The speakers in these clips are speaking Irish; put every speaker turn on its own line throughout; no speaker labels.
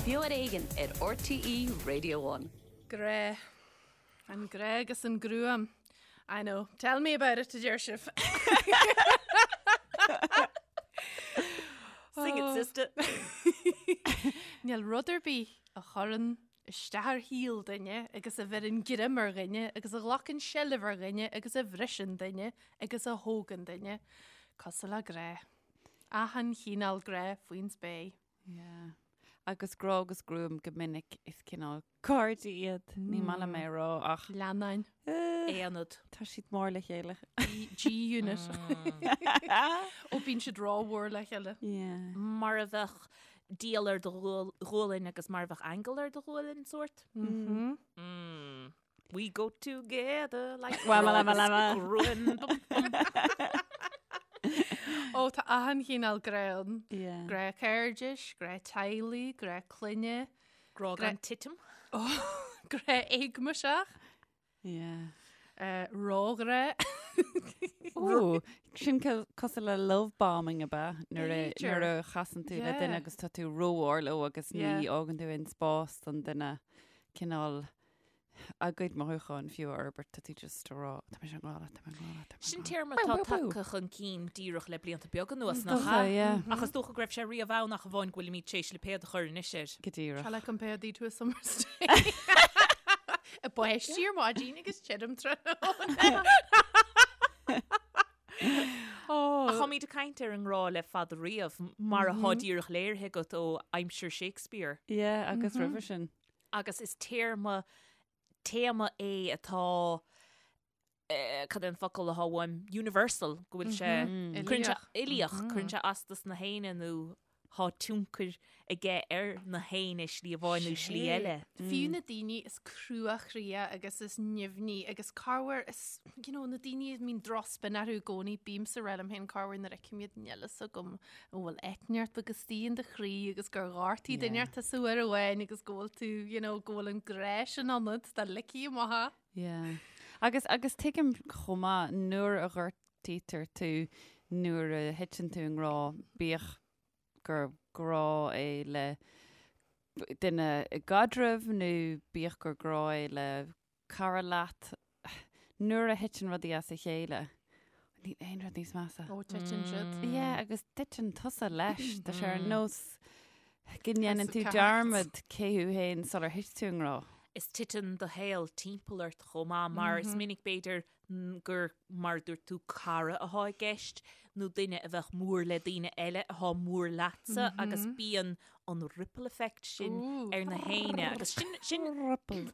Beo ar Éigean ar RTÉ Radio One.
Grá. An grá agus an gruaim. I know. Tell me about it, a deir sibh.
Sing it, sister.
Níl rud ar bith a chuireann isteach ar shaol duine agus a bheireann greim ar dhuine agus a ghlacann seilbh ar dhuine agus a bhriseann duine agus a thógann duine cosúil le grá. Achan chineál grá faoin spéir.
Yeah. Agus grá agus gruaim go minic is cineál cairde iad. Ní maith liom é a rá ach.
Leannáin.
Aonad.
Tá siad mór le chéile.
G-unit. Ó bíonn siad rómhór le chéile.
Yeah.
Mar a bheadh diabhal ar do ghualainn agus mar a bheadh aingeal ar do ghualainn sórt.
Mm.
Mm. We go together like
gruaim.
Ó tá achan chineál grá ann.
Yeah.
Grá cairdis, grá teaghlaigh, grá clainne.
Grá gan titim.
Grá éagmaiseach.
Yeah.
Róghrá.
Ó, sin cosúil le love bombing ab ea? Nuair a
B'fhéidir.
nuair a chasann tú le duine
Yeah.
agus tá tú rómhór leo agus ní
Yeah.
fhágann tú aon spás don duine cineál a gcuid mothúcháin fiú a fhorbairt, tá tú just ag rá, tá mise i ngrá leat, tá mé i ngrá leat, tá mé i
Sin
ngrá leat.
téarma atá tagtha chun cinn díreach le blianta beaga anuas, nach
Dócha,
ea?
yeah.
Ach is dócha go raibh sé riamh ann ach amháin go bhfuilimid tar éis lipéad a chur anois air.
Go díreach.
Shall I compare thee to a summer's day? Ag báistí ar maidin agus tirim tráthnóna.
Ach táimid ag caint ar an ngrá le fada riamh, mar atá díreach léirithe agat ó aimsir Shakespeare.
Yeah, agus roimhe sin.
Agus is téarma, téama é atá, cad é an focal atá uaim, universal, go bhfuil sé, cuireann sé, uilíoch, cuireann sé as dos na héinne nó tá tionchar aige ar na héinne slí amháin nó slí eile.
Fiú na daoine is cruachroíche agus is nimhní agus corruair is, you know, na daoine a mbíonn drochspin orthu i gcónaí, bímse ag rá liom féin corruair nuair a fheicim iad níl fhios agam an bhfuil eitneacht beag istigh in do chroí agus gur ghortaigh duine inteacht tusa uair amháin agus go bhfuil tú, you know, go bhfuil an grá sin ionat dá ligfí amach é.
Yeah. Agus, agus tuigim chomh maith nuair a ghortaítear tú, nuair a thiteann tú i ngrá, bíodh gur grá é le duine i gcaidreamh nó bíodh gur grá é le cara leat, nuair a thiteann rudaí as a chéile, níl aon rud níos measa.
Ó, titeann siad.
Yeah, agus titeann tusa leis. Tá sé ar nós go ndéanann tú
cards.
dearmad cé thú féin sular thit tú i ngrá.
Is titeann do shaol timpeall ort chomh maith mar is minic b'fhéidir gur mar a dúirt tú cara atá i gceist nó duine a bheadh mór le daoine eile atá mór leatsa agus bíonn an ripple effect sin ar na héinne agus sin sin
Ripple.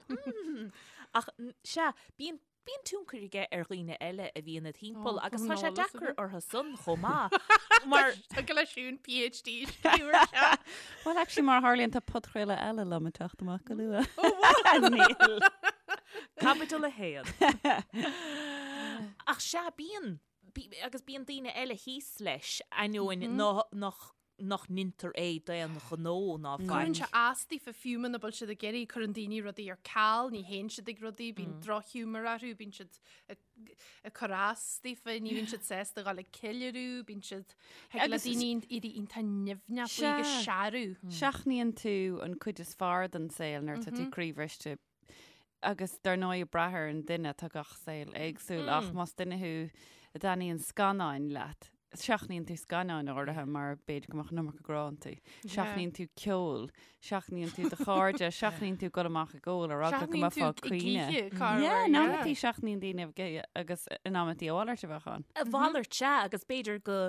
ach sea bíonn bíonn tionchar aige ar dhaoine eile a bhíonn id thimpeall agus tá sé deacair orthu san chomh maith mar
Tá go leis siún PhD scríobh ar seo.
Well, actually, mar a tharlaíonn tá podchraoladh eile liom ag teacht amach go luath. Níl.
Caibidil 1. Ach sea, bíonn, agus bíonn daoine eile thíos leis, ainneoin nach nach ndeintear é d'aon ghnó ná faic.
Cuireann sé as daofa fiú muna bhfuil siad ag iarraidh, cuireann daoine rudaí ar ceal, ní théann siad ag rudaí, bíonn drochghiúmar orthu, bíonn siad ag cur as daofa, ní bhíonn siad sásta a dhul ag ceiliúradh, bíonn siad, thig le daoine éirí iontach nimhneach faoi agus searradh.
Seachnaíonn tú an cuid is fearr den saol nuair atá tú croíbhriste Agus dar ndóigh ag brath ar an duine, tá gach saol éagsúil ach más duine thú a dtaitníonn scannáin leat, seachnaíonn tú scannáin áirithe mar b'fhéidir go mbeadh an iomarca grá iontu. Seachnaíonn tú ceol, seachnaíonn tú do chairde, seachnaíonn tú dul amach ag ól ar eagla go
Seachnaíonn
mbeifeá
tú
ag
ag
caoineadh.
oíche, corruair,
Yeah, in
yeah.
amantaí seachnaíonn daoine ag oíche agus in amantaí a mhalairt a bheadh ann.
A mhalairt, sea, agus b'fhéidir go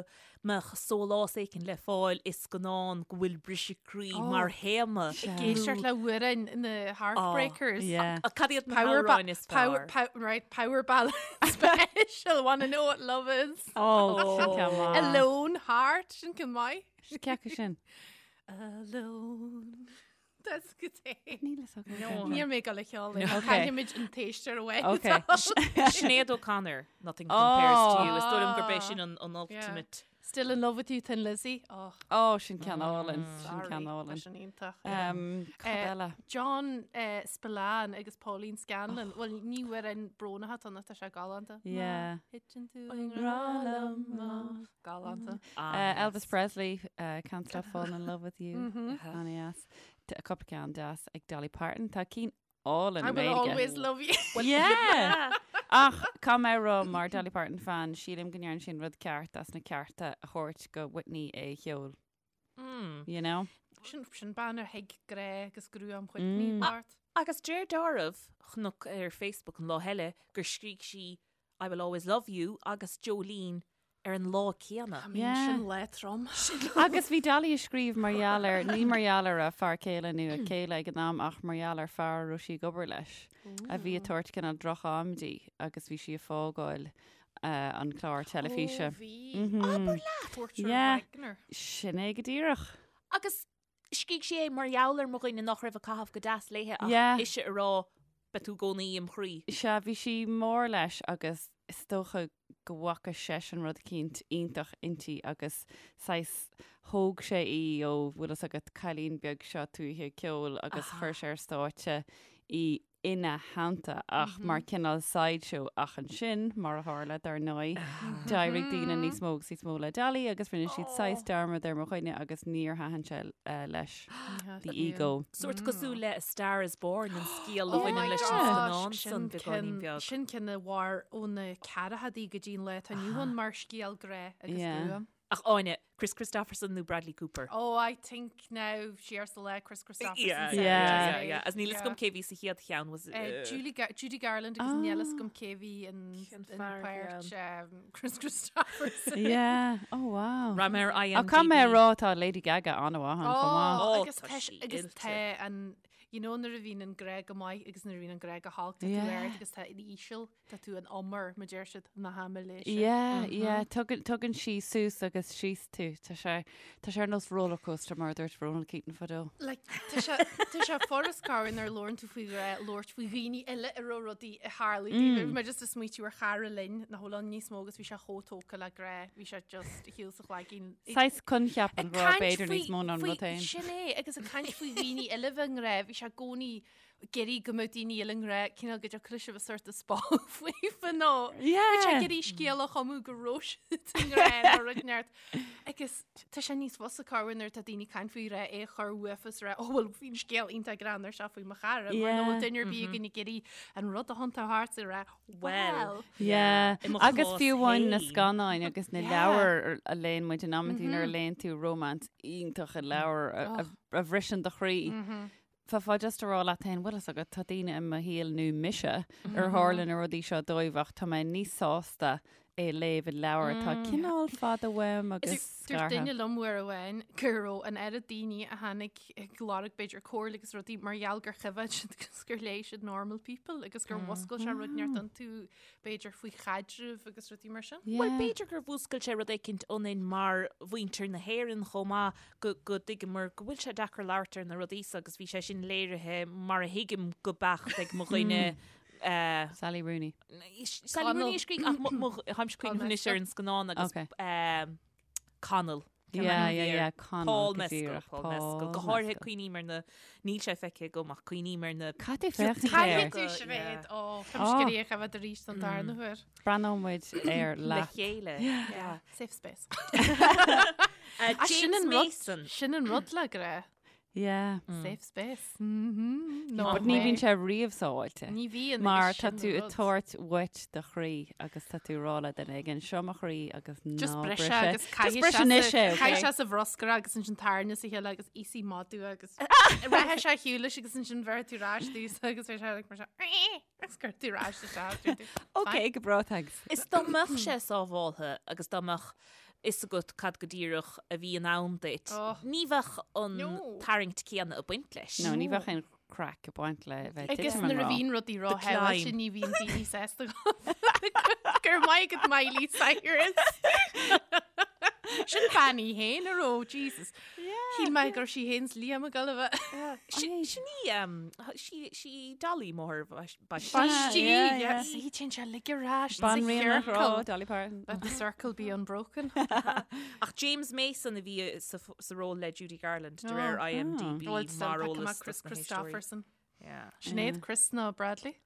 mbeadh sólás éicint le fáil i scannán go bhfuil briseadh croí mar théama.
Ag éisteacht le hamhráin na Heartbreakers.
Yeah.
Cad iad na
Power ba-
hamhráin is
power,
fearr?
pow- right, power ballad special, wanna know what love is.
Oh, sin ceann maith.
Alone Heart, sin ceann maith.
Sin cé acu sin?
Alone. That's good.
Níl a fhios agam.
No.
Níl mé ag dul a cheol.
Okay.
Caithfimid an t-éisteoir away.
Okay.
Sinéad O'Connor, Nothing Compares to You. Is dóigh liom gurb é sin an an ultimate.
Still in love with you, Thin Lizzy. Oh,
Oh, sin ceann álainn. Sin
sorry.
ceann
Tá
álainn.
sin iontach.
Um, cad
Eh,
eile?
John eh, Spillane agus Pauline Scanlon. Well, ní amhrán brónach atá ann, tá sé galánta.
Yeah.
Má thiteann tú i ngrá liom, má- Galánta.
Uh, Elvis Presley, uh, Can't Stop Falling in Love with You. An-deas. Tá cúpla ceann deas ag Dolly Parton. Tá cinn álainn
I
i
will
nGaeilge.
always love you.
Yeah! Ach caithfidh mé a rá mar Dolly Parton fan, sílim go ndearna sí an rud ceart as na cearta a thabhairt go Whitney é a cheol. You know?
Sin, sin bean a thuig grá agus gruaim Whitney mm. Bart.
Agus deir dealramh chonac ar Facebook an lá eile gur scrígh sí I will always love you agus Jolene ar an lá céanna.
I mean, sin lá trom.
Agus bhí Dolly ag scríobh mar gheall ar, ní mar gheall ar a fear céile nó a céile ag an am ach mar gheall ar fear a raibh sí ag obair leis a bhí ag tabhairt cineál droch-am di agus bhí sí ag fágáil an clár teilifíse.
Ó, bhí. Abair leat! Porter
Yeah.
Wagoner.
Sin é go díreach.
Agus scrígh sí é mar gheall ar mo dhuine nach raibh ag caitheamh go deas léithe ach
Yeah.
ise a rá beidh tú i gcónaí im chroí.
Sea, bhí sí mór leis agus is dócha go bhfaca seisean rud eicínt iontach inti agus saghas thóg sé í ó bhfuil fhios agat cailín beag seo tuaithe ceoil agus chuir sé ar stáitse í ina theannta ach mar cineál sideshow ach ansin, mar a tharla, dar ndóigh, d'éirigh daoine níos mó agus níos mó le Dolly agus rinne siad saghas dearmad ar mo dhuine agus níor thaitin sé leis. The ego.
Sórt cosúil le A Star is Born an scéal a bhaineann leis an scannán san beagáinín beag.
Sin ceann a mhair ó na ceathrachaidí go dtí an lá atá inniu ann mar scéal grá agus gruaim.
Ach Áine, Kris Kristofferson nó Bradley Cooper?
Oh, I think now siar sa lá Kris Kristofferson.
Yeah,
Yeah.
yeah, yeah. As níl fhios agam cé bhí sa chéad cheann was
Julie Ga Judy Garland agus níl fhios agam cé bhí in
Cén
in
fear
páirt um, Kris Kristofferson.
Yeah. Oh wow.
Raibh mé ar IMDb.
Ach caithfidh mé a rá tá Lady Gaga an-mhaith ann chomh maith.
Oh,
Oh,
agus
tá
tá
sí
agus
oilte.
tá an you know nuair a bhíonn an grá go maith agus nuair a bhíonn an grá go holc tá tú
Yeah.
ard agus tá an íseal Tá tú in umar, mar deir siad, na haimléise.
Yeah, yeah, tugann, tugann sí suas agus síos tú. Tá sé, tá sé ar nós rollercoaster mar a dúirt Ronan Keating fadó.
Like, tá sé, tá sé furast corruair nuair a labhrann tú faoi ghrá, labhairt faoi dhaoine eile a raibh rudaí ag tarlú dóibh. Bhí mé just ag smaoitiú ar chara linn nach bhfuil ann níos mó agus bhí sé chomh tógtha le grá, bhí sé just ar shiúl sa chlaigín.
Saghas coincheap an
Ag
ghrá
caint
b'fhéidir
faoi-
níos mó ná an
faoi-
rud féin.
Sin é, agus ag caint faoi dhaoine eile bheith i ngrá, bhí sé i gcónaí ag iarraidh go mbeadh daoine eile i ngrá, cineál go dtiocfadh leis a bheith sort of spá faofa nó
Yeah.
Bhí sé ag iarraidh scéal a chumadh go raibh siad i ngrá nó rud inteacht. Agus tá sé níos fusa corruair nuair atá daoine ag caint faoi ghrá é a chur uafa is rá, oh well bhí an scéal iontach greannmhar seo faoi mo chara, mar
Yeah.
nach bhfuil duine ar bith againn ag iarraidh an rud a thiontú thart is rá, well.
Yeah.
I mo
Agus
chás
fiú amháin na
féin.
scannáin agus na
Yeah.
leabhair a léann muid in amantaí nuair a léann tú romance iontach i leabhar a- a- a bhriseann do chroí. Bheifeá just a rá leat féin, bhfuil fhios agat, tá daoine i mo shaol nó mise ar tharla na rudaí seo dóibh ach tá mé níos sásta é a léamh i leabhar atá cineál fada uaim agus
Dúirt
scartha.
duine liom uair amháin go raibh an oiread daoine a tháinig ag lorg b'fhéidir comhairle agus rudaí mar gheall gur choimhéad siad agus gur léigh siad Normal People agus gur mhuscail sé rud inteacht iontu b'fhéidir faoi chaidreamh agus rudaí mar sin.
Bhuel, b'fhéidir gur mhúscail sé rud éicint ionainn mar mhuintir na hÉireann chomh maith, go go dtuigeamar go bhfuil sé deacair labhairt ar na rudaí so agus bhí sé sin léirithe mar a thuigim go beacht ag mo dhuine eh,
Sally Rooney.
Sally Rooney a scrígh ach mo- mo- tháimse cuimhneamh anois ar an scannán agus
Okay.
eh, Connell.
Yeah, yeah, yeah, Connell,
Paul
go
Mescal,
díreach,
Paul Mescal. Go
Paul
háirithe
Mescal.
cuimhním ar na, níl sé feicthe agam ach cuimhním ar na
Caithfidh tú féachaint
Caithfidh
air.
tú Sinéad, ó,
Ó.
Táim ag iarraidh a choimhéad arís don darna huair.
Breathnóidh muid air
le
leat.
chéile. Yeah.
Safe space.
Uh,
Sin
James
an rud-
Mason.
Sin an rud le grá.
Yeah.
Safe space. Mhm. No
But ní
way.
bhíonn sé riamh sábháilte.
Ní bhíonn.
Mar
agus
tá
sin
tú
an
ag
rud.
tabhairt uait do chroí agus tá tú ag rá le duine éigin seo mo chroí agus
Just
ná
bris
bris
é
é.
agus
Just
caithfidh
bris
sé
anois
sa-
é, okay?
caithfidh sé sa bhruscar agus ansin tarna sa chéile agus íosfaidh madadh agus rachaidh sé ar shiúl leis agus ansin bheir tú ar ais dtús agus bheidh sé like mar seo, agus cuir tú ar ais isteach, deir tú,
Ok, go breá, thanks.
Is dá mbeadh sé sábháltha agus dá mbeadh fhios agat cad go díreach a bhí in ann duit,
Oh.
ní bheadh an
No.
tarraingt céanna ag baint leis.
No, ní bheadh aon craic ag baint le bheith
Agus
titim an
nuair a
rá.
bhíonn rudaí
The
róshamháilte
climb.
ní bhíonn daoine sásta Gur maith agat Miley Cyrus. Sin bean í féin a raibh, Jesus. Shíl mé gur sí féin 's Liam ag dul a bheith.
Sin sin í um, sí sí Dolly máthair baistí.
Baistí,
yeah,
yeah.
yeah.
Sí, téann sé uilig ar ais sa
Banríon an ghrá,
chiorcal.
Dolly Parton.
Let the circle be unbroken.
Ach James Mason a bhí sa f- sa ról le Judy Garland de réir
Oh.
IMDb
Well, still
mar
pick him
eolas
up, Kris
dos na héisteoirí.
Kristofferson.
Yeah.
Sinéad, Kris nó Bradley?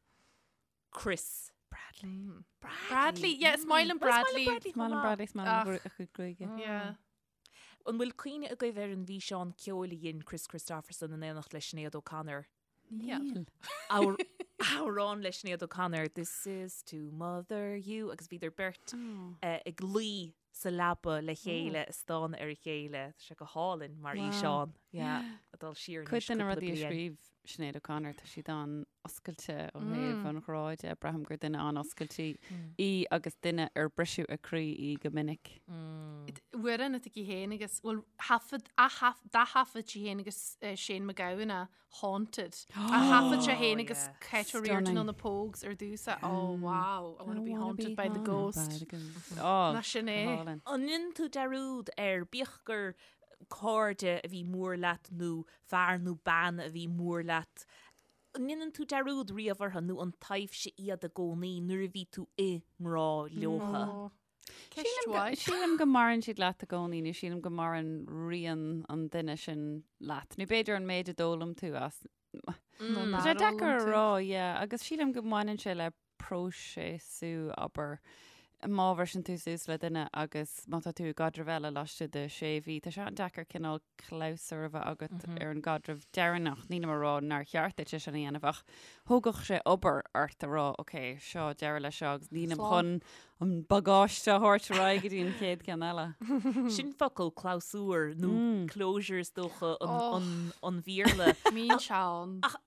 Kris. Bradley.
Bradley, yeah, is maith liom Bradley.
Is maith liom Bradley, is maith liom
Ach.
a chuid gruaige.
Yeah.
An bhfuil cuimhne agaibh ar an bhfíseán ceoil a dhein Kris Kristofferson in éineacht le Sinéad O'Connor?
Níl.
Amhrán le Sinéad O'Connor, This is to mother you, agus bhíodar beirt ag luí sa leaba le chéile ag stánadh ar a chéile. Tá sé go hálainn mar fhíseán. Yeah, ag dul siar
anois Cuid de na rudaí a scríobh Sinéad O'Connor, tá siad an-oscailte ó thaobh an ghrá de. Braithim gur duine an-oscailte í agus duine ar briseadh a croí í go minic.
Amhrán atá aici féin agus, bhuel, thaifead, d'ath-thaifead sí féin agus Shane MacGowan é, Haunted. A thaifead sé féin agus Kate O'Riordan ó na Pogues ar dtús. Oh, wow, I wanna be haunted by the ghost.
Oh,
Ná sin é.
An ndéanann tú dearúd ar, bíodh gur cairde a bhí mór leat nó fear nó bean a bhí mór leat, an ndéanann tú dearúd riamh orthu nó an taibhse iad i gcónaí nuair a bhí tú i ngrá leotha?
Ceist mhaith.
Sílim go maireann siad leat i gcónaí nó sílim go maireann rian an duine sin leat. Nó b'fhéidir an méid a d'fhoghlaim tú as. Tá sé deacair a rá, yeah, agus sílim go mbaineann sé le próiseasú, abair, má bhriseann tú suas le duine agus má tá tú i gcaidreamh eile laistigh de sé mhí, tá sé an-deacair cineál clabhsúr a bheith agat ar an gcaidreamh deireanach. Nílim ag rá nár cheart duit é sin a dhéanamh ach thógfadh sé obair ort a rá ok, seo deireadh leis seo agus nílim chun an bagáiste a thabhairt ar aghaidh go dtí an chéad ceann eile.
Sin focal clabhsúr nó closure is dócha an Bhéarla.
Mín Seán.
Ach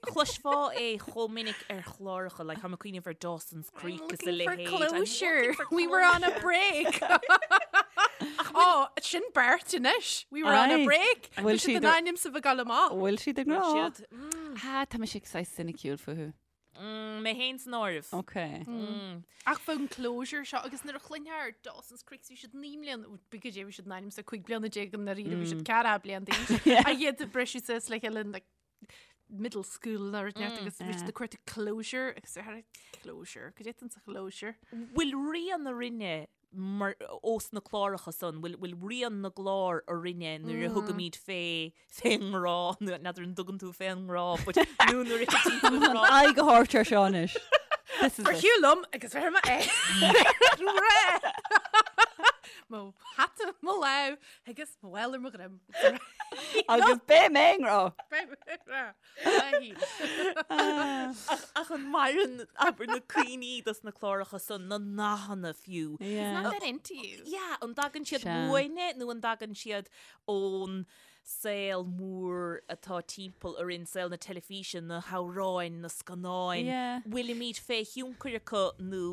Chloisfeá é chomh minic ar chláracha, like, táim ag cuimhneamh ar Dawson's Creek is a
Looking for
leithéid. I'm
closure.
looking for
We were on a break. Oh, sin beirt anois. We were on a
Aye.
break.
Bhfuil
Bhí siad
siad
in ainm is a bheith ag gabháil amach.
Bhfuil siad i ngrá?
Siad, mm,
Ah, tá mise saghas soiniciúil fúthu.
mm, mé féin san áireamh.
Ok.
Mm.
Ach faoin closure seo agus nuair a chluinfeá ar Dawson's Creek bhí siad 9 mbliana, b'fhéidir go dté bhí siad in ainm is a 15 bliana i ndáiríre bhí siad 14 bliana d'aois. A iad ag briseadh suas le chéile in like middle school nó rud inteacht agus bhí siad ag cuartú closure agus ar closure, cad é atá sa chlosure?
Bhfuil rian orainne mar ós na cláracha san, bhfuil bhfuil rian na gclár orainne nuair a thugaimid fé fén ngrá, nó n'fheadar an dtugann tú fén ngrá, but nó nuair a thiteann tú i ngrá.
Aghaidh a thabhairt ar seo anois. This is
Ar
it.
shiúl liom agus bheir mé é. Mo hata i mo lámh agus mo mhála ar mo dhroim.
Agus beidh mé i ngrá.
Beidh mé i ngrá.
Ach an maireann abair na cuimhní dos na cláracha san, na nathanna fiú.
Yeah.
Not that into you.
Yeah, an dtagann siad
Sea.
uainne nó an dtagann siad ón saol mór atá timpeall orainn, saol na teilifíse, na hamhráin, na scannáin.
Yeah.
Bhfuilimid fé thionchar acu nó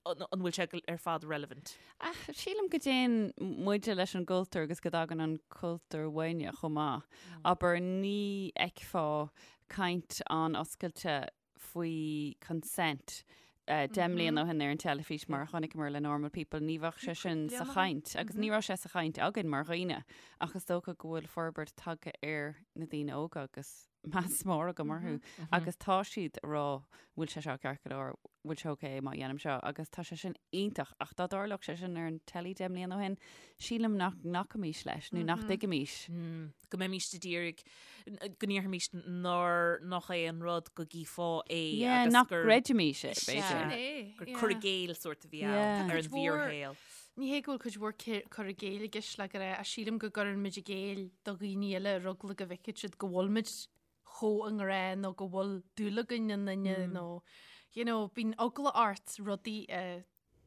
an bhfuil sé ar fad relevant?
Ach sílim go dtéann muide leis an gcultúr agus go dtagann an cultúr uainne chomh maith. Abair, ní fheicfeá caint an-oscailte faoi consent 10 mbliana ó shin ar an teilifís mar a chonaiceamar le Normal People, ní bheadh sé sin sa chaint agus ní raibh sé sa chaint againn mar dhaoine ach is dócha go bhfuil forbairt tagtha ar na daoine óga agus meas mór agam orthu agus tá siad ag rá bhfuil sé seo ceart go leor, bhfuil sé ok má dhéanaim seo agus tá sé sin iontach ach dá dtarlódh sé sin ar an teilí 10 mbliana ó shin, sílim nach nglacfaimis leis nó nach dtuigfimis.
Go mbeimis ag iarraidh, go ndéarfaimis nár nach é an rud go gcífeá é
Yeah,
agus
nach
gur
gcreidfimis é,
Sea.
b'fhéidir.
Sin é,
gur
yeah.
cur i gcéill sórt a bhí ann
Yeah.
ar an
Cuid mhór-
bhfíorshaol.
Ní hé go bhfuil cuid mhór cur i gcéill i gceist le go raibh, ach sílim go gcuireann muid i gcéill do dhaoine eile ar eagla go bhfeicfidh siad go bhfuil muid chomh i ngrá nó go bhfuil dúil againn i nduine nó you know, bíonn eagla ort rudaí a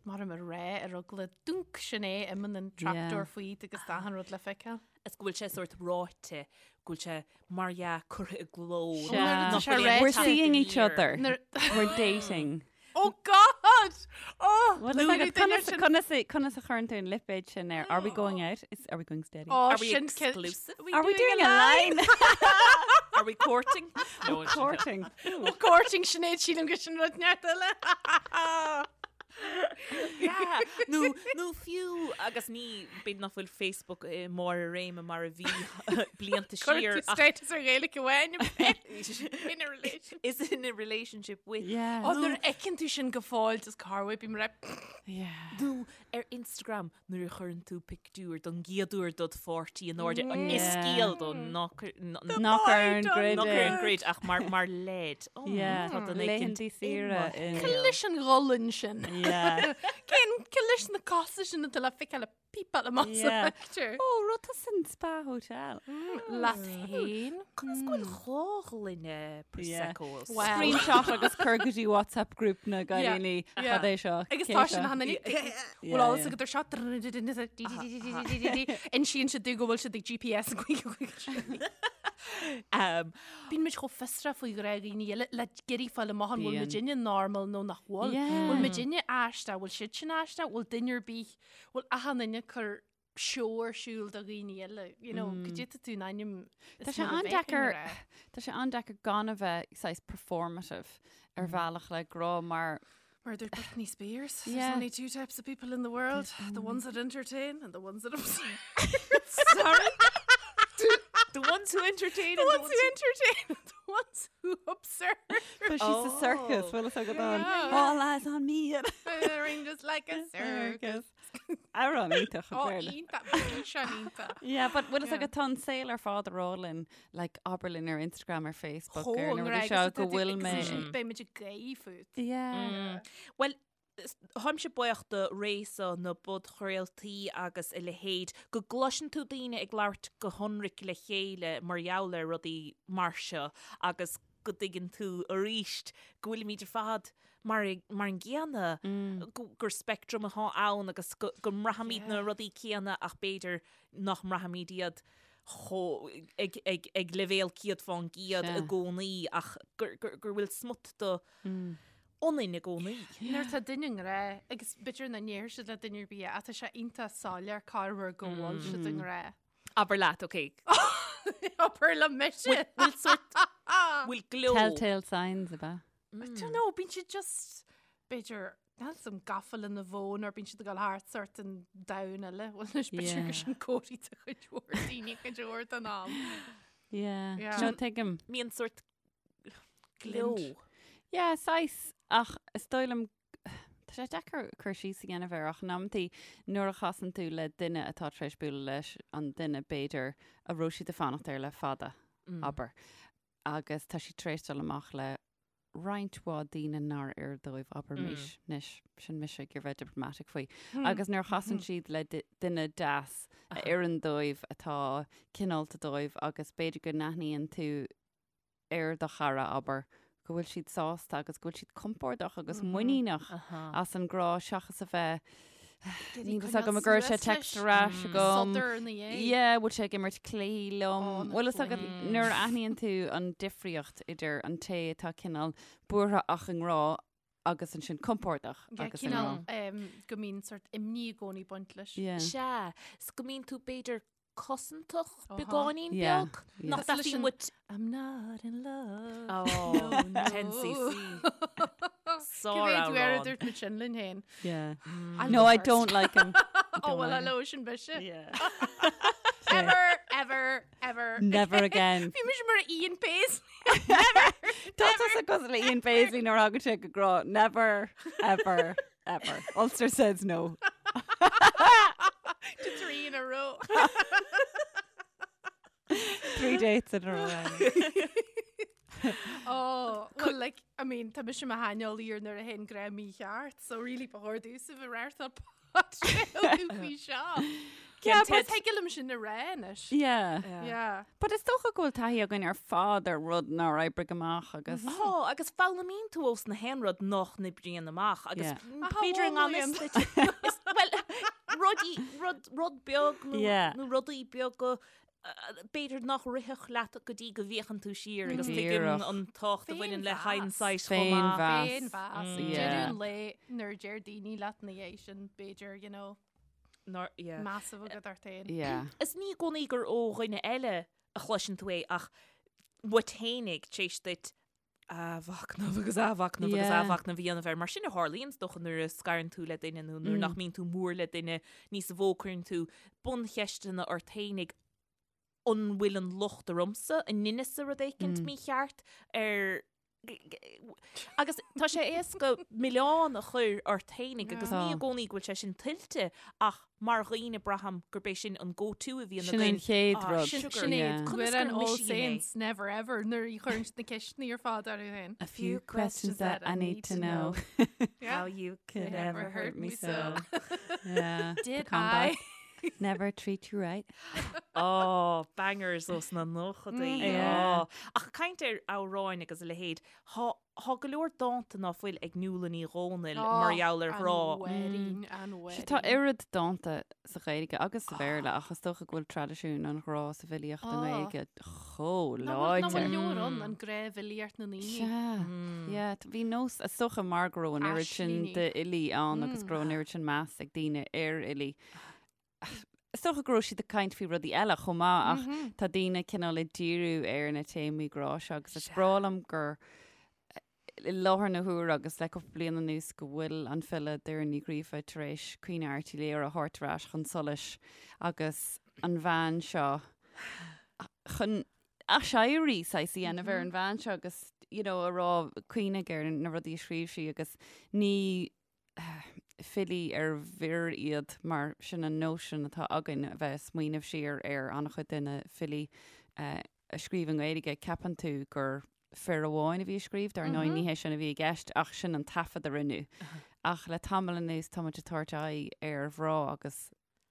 mar a rá ar eagla dúnc sin é imíonn an trapdoor faoi agus tá achan rud le feiceáil.
Is go bhfuil sé sórt ráite, go bhfuil sé mar dhea curtha i gcló.
Sea.
Nach
Tá sé
bhfuil aon
We're
teacht
seeing each
aniar.
other.
Nuair-
We're dating.
Oh God! Oh,
Well,
nuair
is
a duine
conas,
sin-
conas, a- conas a chuireann tú an lipéad sin air? Are we going out? Is, are we going steady?
Oh,
Are we
sin ce-
exclusive?
Are we doing a line?
Are we courting? No, it's-
Courting.
Oh, courting Sinéad sílim go sin rud neart eile.
Yeah. Nó, nó fiú agus ní b'fhéidir nach bhfuil Facebook i mbarr a réime mar a bhí blianta
Cuir
siar
tú
ach
status ar Ghaeilge amháin in a relationship.
is in a relationship with.
Yeah.
Oh, nuair a fheiceann tú sin go fóill just carway bím rep.
Yeah.
Nó ar Instagram nuair a chuireann tú pictiúr don gcéad uair dod pháirtí in airde an
Yeah.
is scéal do nach
Nach ar an grid
nach ar
é.
an grid ach mar mar leid. Oh,
Yeah.
tá duine éicint
Laethanta saoire
i mo
in-
shaol.
Leis an gholann sin.
Yeah.
Cén cé leis na cosa sin atá le feiceáil ag pípeáil amach sa
Yeah.
phictiúr?
Ó, raibh tú san spa hotel.
Leat féin.
Conas go bhfuil dhá ghloine Prosecco
Well.
Screenshot agus cur go dtí WhatsApp group na gcailíní.
Yeah.
Cad é seo?
Agus
Cé
tá
seo?
sin han
Yeah,
Bhfuil alles
yeah.
agat ar seo Insíonn siad domh go bhfuil siad ag GPS
Um,
Bíonn muid chomh fiosrach faoi ghrá dhaoine eile le iarraidh fáil amach an bhfuil
Bíonn.
muidinne normal nó nach bhfuil.
Yeah.
Bhfuil muidinne aisteach, bhfuil siad sin aisteach, bhfuil duine ar bith, bhfuil achan duine ag cur seó ar siúl do dhaoine eile, you know, go dté tú in ainm is
Tá sé
mar a bheadh
an-deacair-
i ngrá.
Tá sé an-deacair gan a bheith saghas performative ar bhealach le grá mar
Mar dúirt Britney Spears, there's
Yeah.
only two types of people in the world, the ones that entertain and the ones that observe.
Sorry? The ones who entertain
The
and
ones who entertain and the ones who observe.
But she's a circus,
Oh.
bhfuil a fhios agat an.
Yeah.
All eyes on me.
Ring just like a circus.
Amhrán iontach
Oh,
an Béarla.
iontach, bhí sé iontach.
Yeah, but bhfuil a fhios
Yeah.
agat tá an saol ar fad ag rá linn, like abair linn ar Instagram ar Facebook
Chomh
ar na rudaí
an
seo go bhfuil mé.
Beidh muid ag gáire fút.
Yeah.
Well, táimse buíoch do ré seo na bpodchraoltaí agus a leithéid, go gcloiseann tú daoine ag labhairt go hionraic le chéile mar gheall ar rudaí mar seo agus go dtuigeann tú arís go bhfuilimid ar fad mar mar an gcéanna, gur speictream atá ann agus go go mbraithimid na rudaí céanna ach b'fhéidir nach mbraithimid iad chomh ag ag ag leibhéal 100% i gcónaí ach gur gur gur bhfuil smut de ionainn i gcónaí.
Nuair atá duine i ngrá, agus b'fhéidir nach ndéarfaidh siad le duine ar bith é, ach tá sé iontach soiléir corruair go bhfuil siad i ngrá.
Abair leat, ok.
Abair le mise!
Bhfuil sort, bhfuil gleo.
Telltale signs ab ea?
I don't know, bíonn siad just, b'fhéidir, níl 'fhios a'm gafa lena bhfón or bíonn siad ag dul thart sort in domhan eile. Bhuel anois b'fhéidir gur sin comharthaí do chuid mhór daoine cuid mhór den am.
Yeah.
Yeah.
No, tuigim.
Mbíonn sort gleo.
Yeah, saghas, ach is dóigh liom, tá sé deacair cur síos a dhéanamh air ach in amantaí nuair a chasann tú le duine atá tar éis bualadh leis an duine b'fhéidir a raibh siad ag fanacht air le fada, abair, agus tá siad tar éis dul amach le roinnt mhaith daoine nár oir dóibh, abraimis, anois, sin mise ag iarraidh bheith diplomatic faoi, agus nuair a chasann siad le duine deas a oireann dóibh, atá cineálta dóibh agus b'fhéidir go n-aithníonn tú ar do chara, abair, go bhfuil siad sásta agus go bhfuil siad compordach agus muiníneach as an ngrá seachas a bheith Níl fhios agam an gcuirfidh sé text ar ais agam.
Sodar ina dhiaidh.
Yeah, bhfuil sé ag imirt cluichí liom.
Ó, na
Bhfuil fhios agat
cluichí.
nuair a aithníonn tú an difríocht idir an té atá cineál buartha ach i ngrá agus ansin compordach
Yeah,
agus i ngrá.
cineál um, go mbíonn sort imní i gcónaí ag baint leis.
Yeah.
Sea, 's go mbíonn tú b'fhéidir cosantach
Aha.
beagáinín
Yeah,
beag.
yeah.
Nach
Cosúil leis
dtaithí
an-
muid
I'm not in love.
Oh,
No, no.
10cc.
Cé mhéad uair a
Sár-amhrán.
dúirt muid sin linn féin?
Yeah.
I'll
No,
go
I
first.
don't like him. I
Oh,
don't
well,
like him.
hello, sin mise.
Yeah.
Ever, ever, ever.
Never again.
Bhí mise mar Ian Paisley.
Tá tusa cosúil le Ian Paisley nuair a thagann sé go grá. Never, ever, ever. Ulster says no.
To three in a row.
Three dates in a row. Annie.
Oh, well, like, I mean, tá mise i mo shaineolaí ar nuair a théann grá mícheart, so really ba chóir domhsa bheith ag reáchtáil podchraoladh faoi seo.
Yeah,
But
but
thig liom sin a rá anois.
yeah.
Yeah.
But is dócha go bhfuil taithí againn ar fad ar rud nár oibrigh amach agus
Tá, agus foghlaimíonn tú ós na haon rud nach n-oibríonn amach agus
Yeah.
b'fhéidir i ngan fhios duit. Is- Well, rudaí, rud, rud beag nó,
Yeah.
nó rudaí beaga b'fhéidir nach rithfeadh leat go dtí go bhféachann tú siar agus tuigeann
Díreach.
an tábhacht a bhaineann le
Féinmheas.
hindsight chomh maith.
Féinmheas.
Féinmheas.
Yeah.
Deireadh an lae nuair a deir daoine leat ina dhiaidh sin, b'fhéidir, you know,
Nár, yeah.
meas a bheith agat ort féin.
Yeah.
Is ní i gcónaí gur ó dhuine eile a chloiseann tú é ach uait fhéinig tar éis duit athmhachnamh agus athmhachnamh agus
Yeah.
athmhachnamh a dhéanamh air. Mar sin a tharlaíonn is dócha nuair a scarann tú le duine nó nuair nach mbíonn tú mór le duine níos mó cuireann tú buncheisteanna ort fhéinig an bhfuil an locht ormsa, an ndeineas-sa rud éicint mícheart ar. Agus tá sé éasca milleán a chur ort fhéinig agus ní i gcónaí go bhfuil sé sin tuillte ach mar dhaoine braithim gurb é sin an go-to a bhíonn
againn. Sin an chéad rud.
Sin é. Conas gur All Saints never ever nuair a chuireann siad na ceisteanna ar fad orthu féin.
A few questions that I need to know.
How you could ever hurt me so.
Yeah.
Did I?
Never treat you right.
Oh, bangers ós na nóchadaí.
Mm. Yeah.
Oh. Ach caint ar amhráin agus a leithéid, thá, thá go leor dánta ná fuil ag Nuala Ní Dhomhnaill mar gheall ar ghrá.
An mhuirín, an
Sea, tá oiread dánta sa Ghaeilge agus sa Bhéarla ach is dócha go bhfuil traidisiún an ghrá sa bhfilíocht i nGaeilge chomh
Nach bhfuil
láidir.
leor ann, an grá bhfilíocht na ndaoine.
Sea, yeah, bhí nós, is dócha mar go raibh an oiread sin
Aislingí.
d'fhilí ann agus go raibh an oiread sin meas ag daoine ar fhilí. Is dócha go raibh siad ag caint faoi rudaí eile chomh maith ach tá daoine cineál ag díriú ar na téamaí grá seo agus is breá liom gur i láthair na huaire agus le cúpla bliain anuas go bhfuil an file Doireann Ní Ghríofa tar éis Caoineadh Airt Uí Laoghaire a thabhairt ar ais chun solais agus an bhean seo chun aiséirí saghas a dhéanamh ar an bhean seo agus you know, a rá cuimhnigh ar na rudaí a scríobh sí agus ní filí ar bhfir iad mar sin an nóisean atá againn a bheith ag smaoineamh siar ar an-chuid de na filí a scríobh i nGaeilge, ceapann tú gur fir amháin a bhí ag scríobh, dar ndóigh ní hé sin a bhí i gceist ach sin an taifead a rinneadh. Ach le tamall anuas tá muid ag tabhairt aghaidh ar mhná agus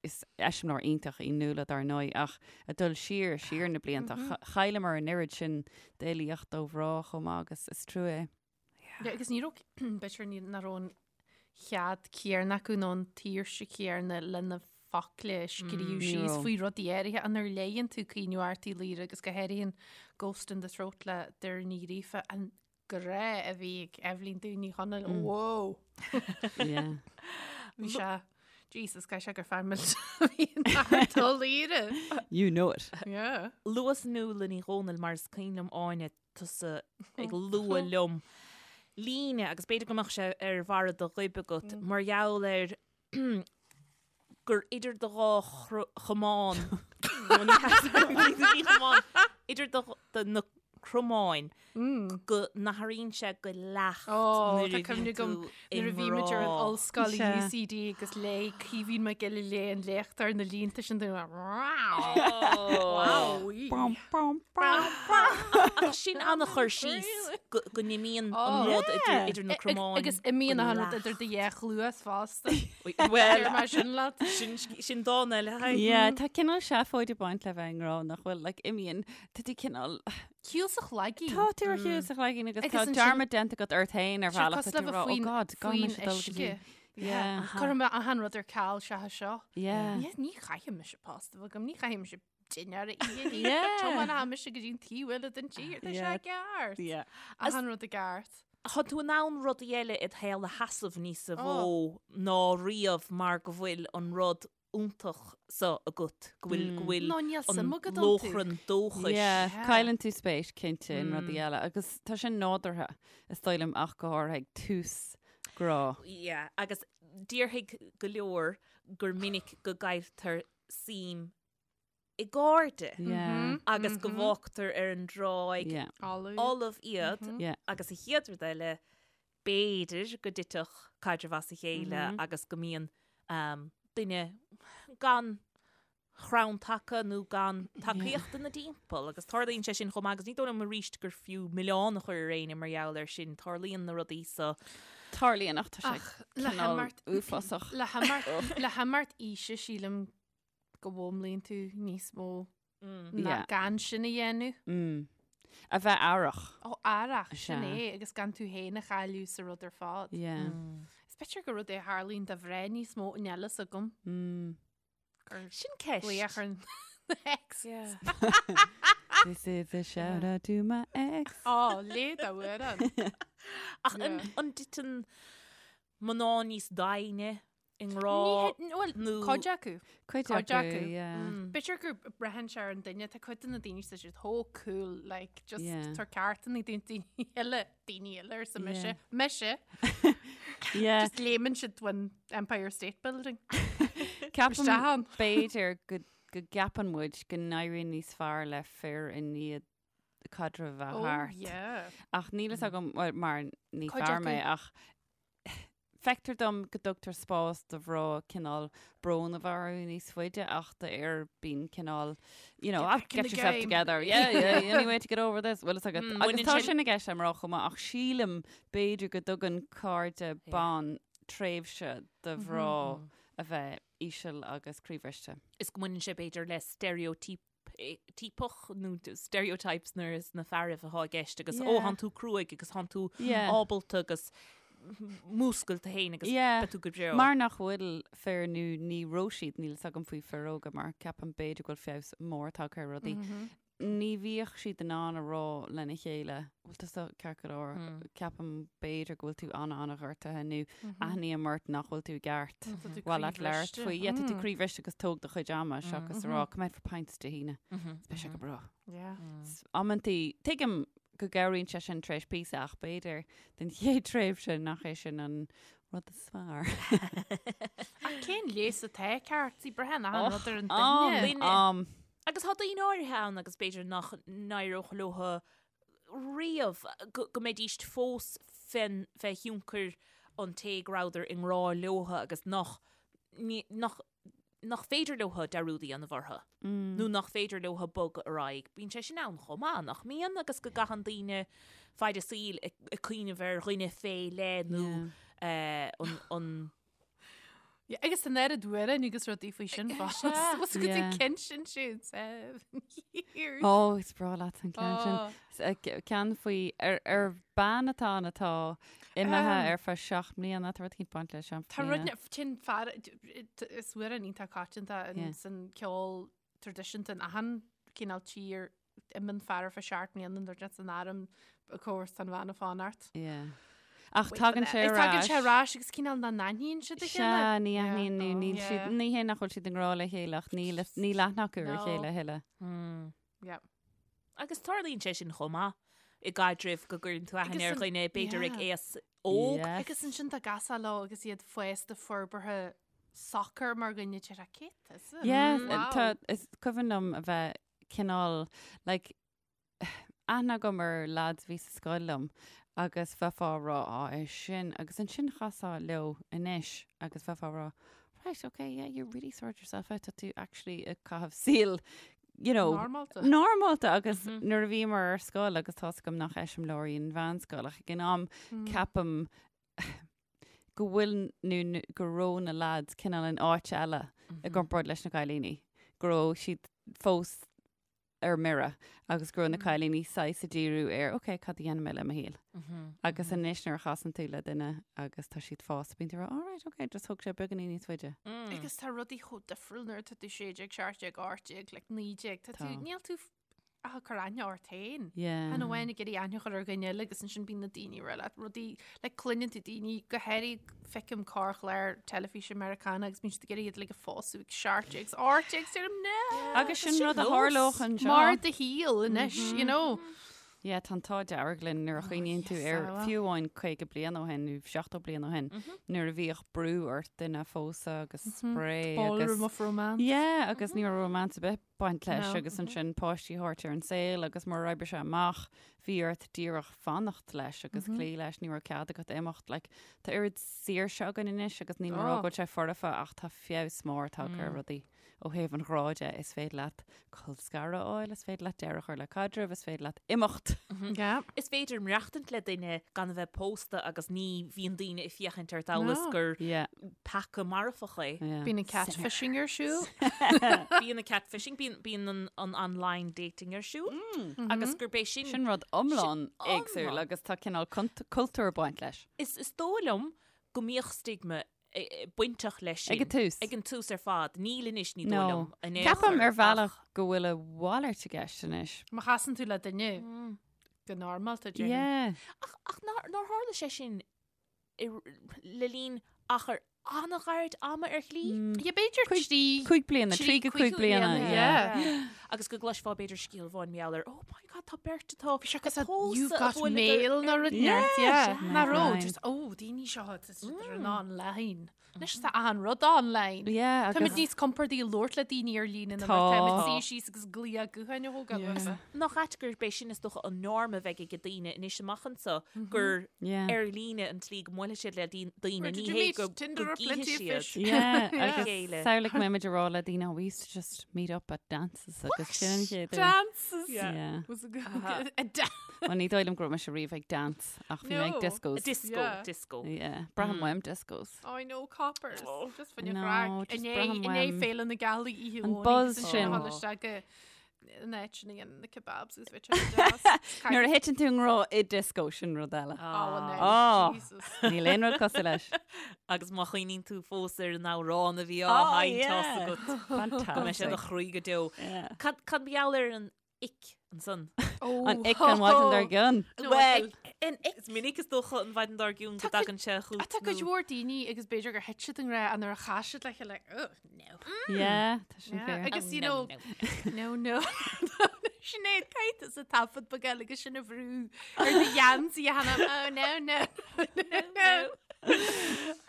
is eiseamláir iontach í Nuala dar ndóigh ach ag dul siar, siar na blianta, chailleamar an oiread sin d'fhilíocht ó mhná chomh maith agus is trua é.
Yeah, agus ní raibh, b'fhéidir ní nach raibh an cead céanna acu nó an tsaoirse chéanna le na focla a scríobh
ní
síos
raibh.
faoi rudaí áirithe nuair a léigheann tú Caoineadh Airt Uí Laoghaire agus go háirithe an Ghost in the Throat le Doireann Ní Ghríofa, an grá a bhí ag Eibhlín Dubh Ní Chonaill, whoa!
Yeah.
Bhí sé, Jesus, caithfidh sé gur fear millteach a bhí in Art Ó Laoghaire.
You know it.
Yeah.
Luas Nuala Ní Dhomhnaill mar is cuimhin liom Áine tusa ag lua liom líne agus b'fhéidir go mbeadh sé ar bharra do ghoib agat mar gheall ar gur idir do dhá chamán nó ní ní chamán idir do do na cromáin go n-athraíonn sé go leacht
Ó,
nuair
tá
a
cuimhne
bhíonn
agam
tú i
nuair a bhí muid ar an
ngrá.
ollscoil i
Sea.
UCD agus léigh Caoimhín Mac Giolla Léith an léacht ar na línte sin dúinn. Wow.
Bam, bam, bam, bam.
Ach sin an-chur síos go go n-imíonn an rud idir idir na cromáin.
Agus imíonn
go
an rud
leacht.
idir do dhá chluas fosta.
Well,
Deir mé sin leat.
sin sin dán eile. Hi.
Yeah, tá cineál seafóid ag baint le bheith i ngrá nach bhfuil, like, imíonn, tá tú cineál,
Shiúl sa chlaigín.
Tá tú ar shiúl sa chlaigín agus
Agus
tá
ansin-
dearmad déanta agat ort féin ar
Sé
bhealach
cosúil
tá
le
tú ag rá,
bheith
oh
faoin-
God, gan
faoin
mise dul go
uisce.
dtí. Yeah.
Cuirfidh mé achan rud ar ceal seachas seo.
Yeah.
Ní ní chaithfidh mise post a bheith agam, ní chaithfidh mise dinnéar a ithe.
Yeah.
Tiomáinfidh mise go dtí an taobh eile den tír, tá sé
Yeah.
ceart.
Yeah.
Achan rud i gceart.
Tá tú in ann rudaí eile id shaol a sheasamh níos
Oh.
mó ná riamh mar go bhfuil an rud iontach so agat, go bhfuil, go bhfuil
No, níl
an
suim agat iontu.
lóchrann dóchais.
Yeah,
Yeah.
cailleann tú spéis cinnte in rudaí eile agus tá sin nádúrtha is dóigh liom ach go háirithe ag tús grá.
Yeah, agus déarfaidh go leor gur minic go gcailltear suim i gcairde
Yeah.
agus go bhfágtar ar an dtráigh
Yeah.
Folamh.
fholamh iad
Yeah.
agus an chéad rud eile b'fhéidir go dtitfeadh caidreamh as a chéile agus go mbíonn duine gan chrann taca nó gan tacaíocht ina dtimpeall agus tarlaíonn sé sin chomh maith agus ní dóigh liom arís gur fiú milleán a chur ar éinne mar gheall air sin, tarlaíonn na rudaí so.
Tarlaíonn ach tá sé
Ach le
cineál
himeacht
uafásach.
le himeacht le himeacht aoise sílim go bhfoghlaimíonn tú níos mó ná
Yeah.
gan sin a dhéanamh.
Mm. A bheith aireach.
Ó, aireach, sin
Sea.
é, agus gan tú féin a chailleadh sa rud ar fad.
Yeah.
Is b'fhéidir gur rud é a tharlaíonn do mhná níos mó níl a fhios agam.
Mm.
Gur
Sin ceist.
glaoch ar an ex.
Yeah.
This is a shout out to my ex.
Ó, léigh d'amhrán.
Ach an
Yeah.
an dtiteann mná níos doimhne i ngrá
Ní bhuel,
nó
cuid acu.
Cuid
Cuid
acu,
acu.
yeah.
B'fhéidir gur braitheann sé ar an duine, tá cuid de na daoine tá siad chomh cool, like, just
Yeah.
tar ceartanna daoine daoine eile, daoine eile arsa mise.
Yeah.
Mise,
Yeah.
just léimeann siad ón Empire State Building.
Ceapaim
Isteach ann.
b'fhéidir go go gceapann muid go n-éiríonn níos fearr le fir i ndiaidh. caidreamh a bheith thart.
Yeah.
Ach níl fhios agam, well, mar ní
Cuid
fear
acu.
mé, ach feictear dom go dtugtar spás do mhná cineál brón a bheith orthu níos faide ach d'fhir bíonn cineál, you know,
Get
ah,
back in
get
the
yourself
game.
together, yeah, yeah, any way to get over this, bhfuil fhios agat.
Mm,
Agus
baineann
tá
sin-
sin i gceist le mná chomh maith, ach sílim b'fhéidir go dtugann cairde ban tréimhse do mhná a bheith íseal agus croíbhriste.
Is go mbaineann sé b'fhéidir le stereotype tíopach nó stereotypes nuair is na fearaibh atá i gceist agus ó
Yeah.
thánn tú cruaidh agus thánn tú
Yeah.
ábalta agus múscail tú féin agus
Yeah.
beidh tú go breá.
Mar nach bhfuil fir nó ní raibh siad, níl fhios agam faoi fir óga mar ceapaim b'fhéidir go bhfuil feabhas mór tagtha ar rudaí. Ní bhíodh siad in ann a rá lena chéile, bhfuil tusa ceart go leor, ceapaim b'fhéidir go bhfuil tú an-an-ghortaithe nó aithním ort nach bhfuil tú i gceart.
Tá tú
Bhfuil leat labhairt
croíbhriste.
faoi, yeah, tá tú croíbhriste agus tóg do chuid ama seachas a rá, come out for pints Dé hAoine. Beidh sé go breá.
Yeah.
Amantaí, tuigim go gcabhraíonn sé sin tar éis píosa ach b'fhéidir den chéad tréimhse nach é sin an rud is fearr.
Ach cén leigheas atá ceart? Sí braitheann achan rud ar an
Am,
duine.
am.
Agus tá daoine áirithe ann agus b'fhéidir nach n-éireodh leo riamh go mbeidíst fós fén fé thionchar an té go rabhadar i ngrá leo agus nach nach nach féidir leo dearúd a dhéanamh orthu nó nach féidir leo bogadh ar aghaidh. Bíonn sé sin ann chomh maith, nach mbíonn? Agus go gcaitheann daoine faid a saoil ag cuimhneamh ar dhuine fé leith nó an an
Yeah, agus an oiread amhrán agus rudaí faoi sin fós. Was go
Yeah.
dtí cinn sin siúd years.
Ó, is breá leat an ceann sin.
Oh.
S- Ceann faoi ar, ar bean atá ann atá imithe ar feadh 7 mbliana, tá rud éicint baint le 7
Tá rud
mbliana.
sin fear is amhrán iontach coitianta
Yeah.
san ceol traidisiúnta in achan cineál tír imíonn fear ar feadh 7 mbliana nuair atá san arm of course tá an bhean ag fanacht.
Yeah. Ach tagann sé ar
Tagann sé
ais.
ar ais agus cineál nach n-aithníonn siad a
Sea,
chéile.
ní aithníonn nó níl
Yeah.
siad, ní hé nach bhfuil siad i ngrá le chéile ach níl, níl aithne acu ar a
No.
chéile a thuilleadh.
Yeah.
Agus tarlaíonn sé sin chomh maith i gcaidrimh go gcuireann tú aithne
Agus
ar
an-
dhuine b'fhéidir ag
yeah.
aos óg.
Yes.
Agus ansin tá gasá leo agus iad fásta forbartha socair mar dhuine deir cé tusa?
Yes,
Wow.
tá, is cuimhin liom a bheith cineál, like, aithne agam ar lads a bhí sa scoil liom agus bheifeá ag rá, á, é sin, agus ansin chasfá leo anois agus bheifeá ag rá, right, okay, yeah, you really sort yourself out, tá tú actually ag caitheamh saol, you know,
Normálta.
normálta agus nuair a bhíomar ar scoil agus tá's agam nach eiseamláir í an mheánscoil ach ag an am ceapaim go bhfuil nó go raibh na lads cineál in áit eile i gcomparáid leis na cailíní, go raibh siad fós ar mire agus go raibh na cailíní saghas ag díriú ar ok, cad a dhéanfaidh mé le mo shaol? Agus anois nuair a chasann tú le duine agus tá siad fásta, bíonn tú ag rá, all right, ok, just thóg sé beagáinín níos faide.
Agus tá rudaí chomh difriúil nuair atá tú 16, 17, 18, like 19, tá tú,
Tá.
níl tú ach ag cur aithne ort féin.
Yeah.
Chan amháin ag iarraidh aithne a chur ar dhuine eile agus ansin bíonn na daoine ag rá leat rudaí, like cluineann tú daoine go háirithe feicim corrchlár teilifíse Meiriceánach agus bíonn siad ag iarraidh iad like a phósadh ag 17 's 18 's deirim no!
Agus sin
sin
rud a
nós.
tharlódh anseo.
Mar do shaol anois, you know.
Yeah, tá an t-ádh dearg linn nuair a chuimhníonn tú
yes,
ar
ah, well.
fiú amháin 50 bliain ó shin nó 70 bliain ó shin nuair a bhíodh brú ort duine a phósadh agus spraoi agus
Ballroom of romance.
Yeah, agus ní raibh romance ar bith baint leis
No.
agus ansin páistí a thabhairt ar an saol agus murar oibrigh sé amach bhí ort díreach fanacht leis agus cloí leis, ní raibh cead agat imeacht. Like, tá oiread saoirse againn anois agus níl mé ag rá
Oh.
go bhfuil sé foirfe ach tá feabhas mór tagtha ar rudaí. Ó thaobh an ghrá de, is féidir leat colscaradh a fháil, is féidir leat deireadh a chur le caidreamh, is féidir leat imeacht.
Yeah.
Is féidir maireachtaint le duine gan a bheith pósta agus ní bhíonn daoine ag féachaint ort amhail is
No.
gur
Yeah.
peaca marfach é.
Yeah.
Bíonn an catfishing ar siúl.
Bíonn an catfishing, bíonn, bíonn an, an online dating ar siúl agus gurb é sin,
Sin rud iomlán éagsúil
iomlán.
agus tá cineál cultúr ag baint leis.
Is, is dóigh liom go mbíodh stigma bainteach leis sin.
Ag an tús.
Ag an tús ar fad. Níl anois, ní dóigh
No.
liom. in aon
Ceapaim
chor,
ar bhealach
ach-
go bhfuil a mhalairt i gceist anois.
Má chasann tú le duine go normálta, déarfainn.
Yeah.
Ach, ach nár, nár tharla sé sin i, le linn achar an-ghairid ama ar shlí.
Yeah, b'fhéidir 3
5 bliana, 3 go 5 bliana, yeah.
Agus go gcloisfeá b'fhéidir scéal amháin mar gheall ar, oh my god, tá beirt atá
Bhí sé cosúil You've got mail nó rud
Yeah,
yeah. Ná raibh,
Right.
just, oh, daoine seo, tá siad ar an online. Anois tá achan rud online.
Yeah,
Táimid
agus
níos compordaí labhairt le daoine ar líne ná
Tá.
mar táimid suí síos agus glaoch gutháin a thógáil uathu.
Nach ait gurb é sin is dócha an norm a bheidh ag daoine anois amach anseo gur
Yeah.
ar líne an tslí go mbuailfidh siad le daoine
Where did
ní
you
hé
meet?
go
Tinder
go
or Plenty
gcífidh
of
siad.
Fish?
Yeah, agus
chéile.
samhlaigh go mbeimid ag rá le daoine, oh, we used to just meet up at dances agus sin an chéad uair.
Dances.
Yeah.
Was a good a dance.
Well, ní dóigh liom go raibh mise riamh ag dance ach bhí mé ag
No.
discos.
Disco,
Yeah.
disco.
Yeah, braithim uaim discos.
Oh, I know coppers. Just fan
No,
craic.
just
Inné
braithim
inné
uaim.
Féile na Gealaí oíche
An
Dhomhnaigh
buzz
agus
sin.
ansin isteach go an áit sin a dhéanann na kebabs agus bheadh sé deas.
Nuair a thiteann tú i ngrá i disco sin rud eile.
Oh, no,
Oh.
Jesus.
Níl aon rud cosúil leis.
Agus má chuimhníonn tú fós ar an amhrán a bhí á
Oh,
sheinnt
yeah.
agat. Go mbeidh sé i do
Fantastic.
chroí go deo.
Yeah.
Cad cad mar gheall ar an ick ansan?
Oh,
An ick an mhaidin dár gcionn.
Well, is minic is dócha an mhaidin dár gcionn go
Tá cuid-
dtagann sé chugat.
Tá cuid mhór daoine agus b'fhéidir gur thit siad i ngrá nuair a chas siad le chéile like, oh, no.
Yeah, tá sin
Yeah,
fair.
Agus you know, no, no. Sinéad caithfidh tusa taifead beag eile agus sin a bhrú ar do gheansaí a sheinm, oh no, no, no, no.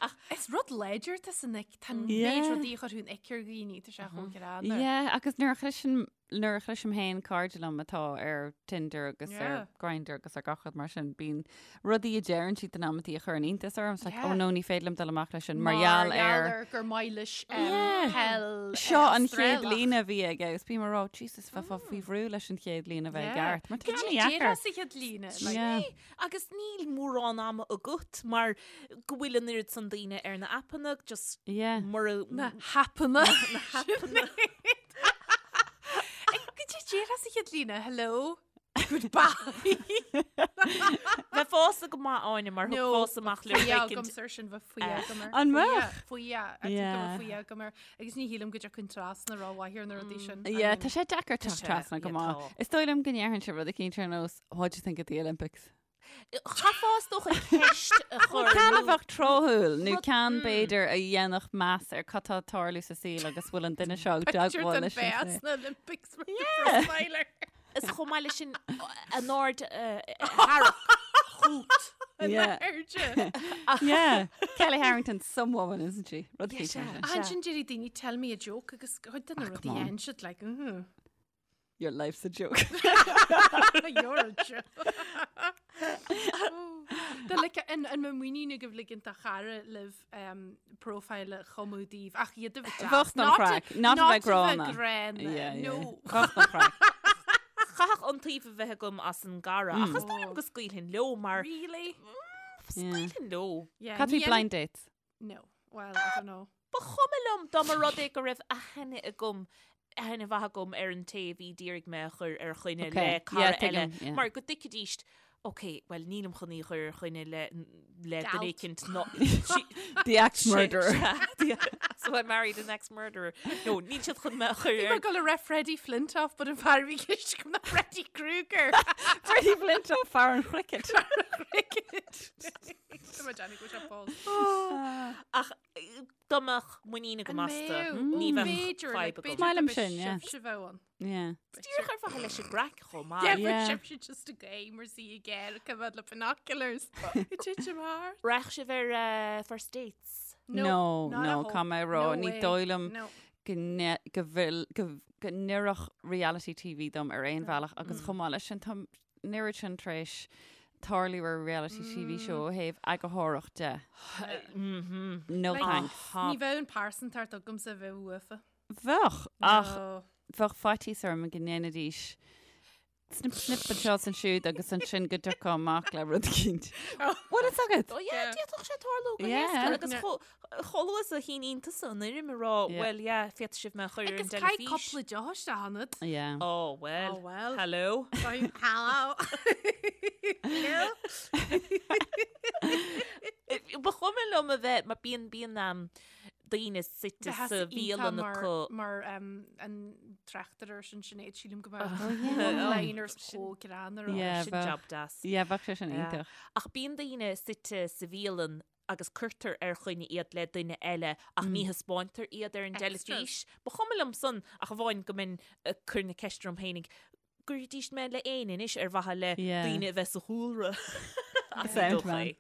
Ach is rud láidir tá san ick, tá an méid
Yeah.
rudaí a chuirfeadh an ick ar dhaoine, tá sé chomh greannmhar.
Yeah, agus nuair a chloisim nuair a chloisim féin cairde liom atá ar Tinder agus
Yeah.
ar Grindr agus ar gach rud mar sin, bíonn rudaí a deireann siad in amantaí a chuireann iontas orm. It's like,
Yeah.
oh no, ní féidir liom dul amach leis sin mar gheall ar
gur maith leis
Yeah.
peil
Seo an chéad
Australach.
líne a bhí aige agus bím ag rá, Jesus, bheifeá faoi bhrú leis an chéad líne a bheith
Yeah.
ceart. Mar tá
Cad
sé
é
deacair.
déarfá sa chéad líne? Like,
Yeah.
Agus níl mórán ama agat mar go bhfuil an oiread san daoine ar na aipeanna just
Yeah.
mura
Na haipeanna. Na haipeanna. Cad é déarfá sa chéad líne, hello, goodbye.
Bheith fásta go maith Áine mar
No,
thug fás amach le
Faoi
éicint.
agam ar sin bheith faoi agam air.
An mbeadh?
Faoi I think
Yeah.
go mbeadh faoi agam air. Agus ní shílim go dtiocfainn trasna rómhaith ar na rudaí sin. I
Yeah,
mean,
tá sé deacair teacht
sé,
trasna go
yeah,
maith.
tá.
Is dóigh liom go ndéarfainn sé rud eicínt ar nós, what do you think of the Olympics?
Chaithfeá is dócha ceist a chur
Ceann a
nó-
bheadh tráthúil nó
Rud-
ceann b'fhéidir a dhéanfadh meas ar cad tá ag tarlú sa saol agus bhfuil an duine seo ag
Picture
teagmháil
den
leis an
bheas
saol.
na Olympics with the profiler.
Is chomh maith leis sin an aird a tharrac chugat.
Yeah.
Airde.
Yeah. Kelly Harrington, some woman, isn't she? Rud
Yeah,
eicínt mar
sea.
sin.
Ansin déarfaidh daoine tell me a joke agus chuid de na
Ah,
rudaí
come on.
dhéanann siad like, mm
Your life's a joke.
You're a joke. Tá like an an mbeadh muinín agaibh ligint do chara libh um, profile a chumadh daoibh ach iad a bheith deas.
Bheadh don chraic, not a bheith gránna.
gránna.
Yeah, yeah.
No.
Bheadh don chraic.
Chaithfeadh iontaoibh a bheith agam as an gcara ach is dóigh liom go scaoilfinn leo mar
Really?
scaoilfinn leo.
Yeah,
Cad faoi
ní
blind dates?
No. Well, I don't know.
Ba chuma liom dá mba rud é go raibh aithne agam aithne mhaith agam ar an té a bhí d'iarraidh mé a chur ar choinne
Okay.
le cara
Yeah,
eile
tuigim, yeah.
mar go dtuigfidís Ok, well nílim chun í a chur ar choinne le le
Galt.
duine éicint ná
The ex-murderer.
So I married an ex-murderer. No, níl siad chun mé a chur
Bhí
ar
mé ag dul a rá Freddie Flintoff, but an fear a bhí i gceist agam ná Freddy Krueger.
Freddie Flintoff, fear an chricket.
Cricket. Tá mé ag déanamh go bhfuil sé fós.
Ach dá mbeadh muinín agam
An
astu,
mbeadh?
ní
Ó,
bheadh
b'fhéidir,
fadhb
like,
agam.
b'fhéidir
Maith liom
go
sin, yeah.
sibhse bheadh ann.
Yeah.
Díreach ar mhaithe leis an gcraic chomh maith.
Yeah, but
Yeah.
sibhse just a game or see again, come out le binoculars. It did your heart.
Raghadh sibh ar eh, first dates.
No,
not
no,
at all.
caithfidh mé a rá,
No
ní
way.
dóigh liom
No.
go ne- go bhfuil go go n-oirfeadh reality TV dom ar aon bhealach agus chomh maith leis sin tá an oiread sin tar éis tarlú ar reality TV show ó thaobh eagarthóireacht de. No
Like,
thanks.
Ní bheadh an pearsantacht agamsa bheith uafa.
Bheadh, ach
No.
bheadh faitíos orm go ndéanfaidís snip snip anseo is ansiúd agus ansin go dtiocfá amach le rud eicínt. Bhfuil fhios agat?
Oh yeah, d'fhéadfadh sé tarlú go
Yeah.
héasca agus chomh luath is a shíníonn tusa an fhoirm a rá,
Yeah.
well yeah, féadfaidh sibh mé a chur ar an
Agus caithfidh
teilifís.
cúpla deoch isteach ionat.
Yeah.
Oh well.
Oh well.
Hello.
Hello. Hello.
Ba chuma liom a bheith mar bíonn bíonn um, daoine suite
Bheadh
sa bhialann acu.
Mar um, an tráchtaire sin Sinéad sílim go mbeadh one-liners chomh greannmhar.
Yeah,
Sin
bheadh.
job deas.
Yeah, bheadh sé sin
Yeah.
iontach.
Ach bíonn daoine suite sa bhialann. agus cuirtear ar choinne iad le duine eile ach ní thaispeántar iad ar an dteilifís. Ba chuma liom san ach amháin go mbeinn ag cur na ceiste orm féinig, gcuirfidís mé le éinne anois ar mhaithe le daoine a bheith sa chúlra.
Sound man.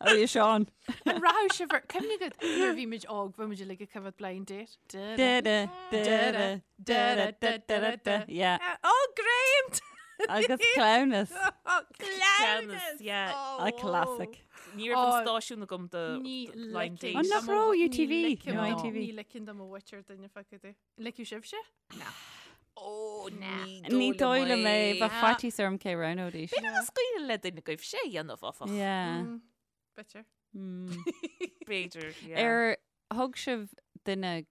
Oh, you Sean.
An rachadh sibh ar cuimhne agat nuair a bhí muid óg bhí muid uilig ag coimhéad blind date.
Da da da da da da da da da Yeah.
Oh, great!
Agus cleamhnas.
Oh,
Cleamhnas, yeah.
A classic.
Ní raibh an stáisiún agam do blind date.
An nach raibh UTV? No, ITV.
Ní ligfinn do mo mhuintir duine feice di. Ligfeadh sibhse?
Na. Ó, ní
Ní dóigh liom é, bheadh faitíos orm cé roghnóidís.
B'fhéidir nach scaoileadh le duine agaibh sé a dhéanamh, áfach.
Yeah.
B'fhéidir.
B'fhéidir, yeah.
Ar thug sibh duine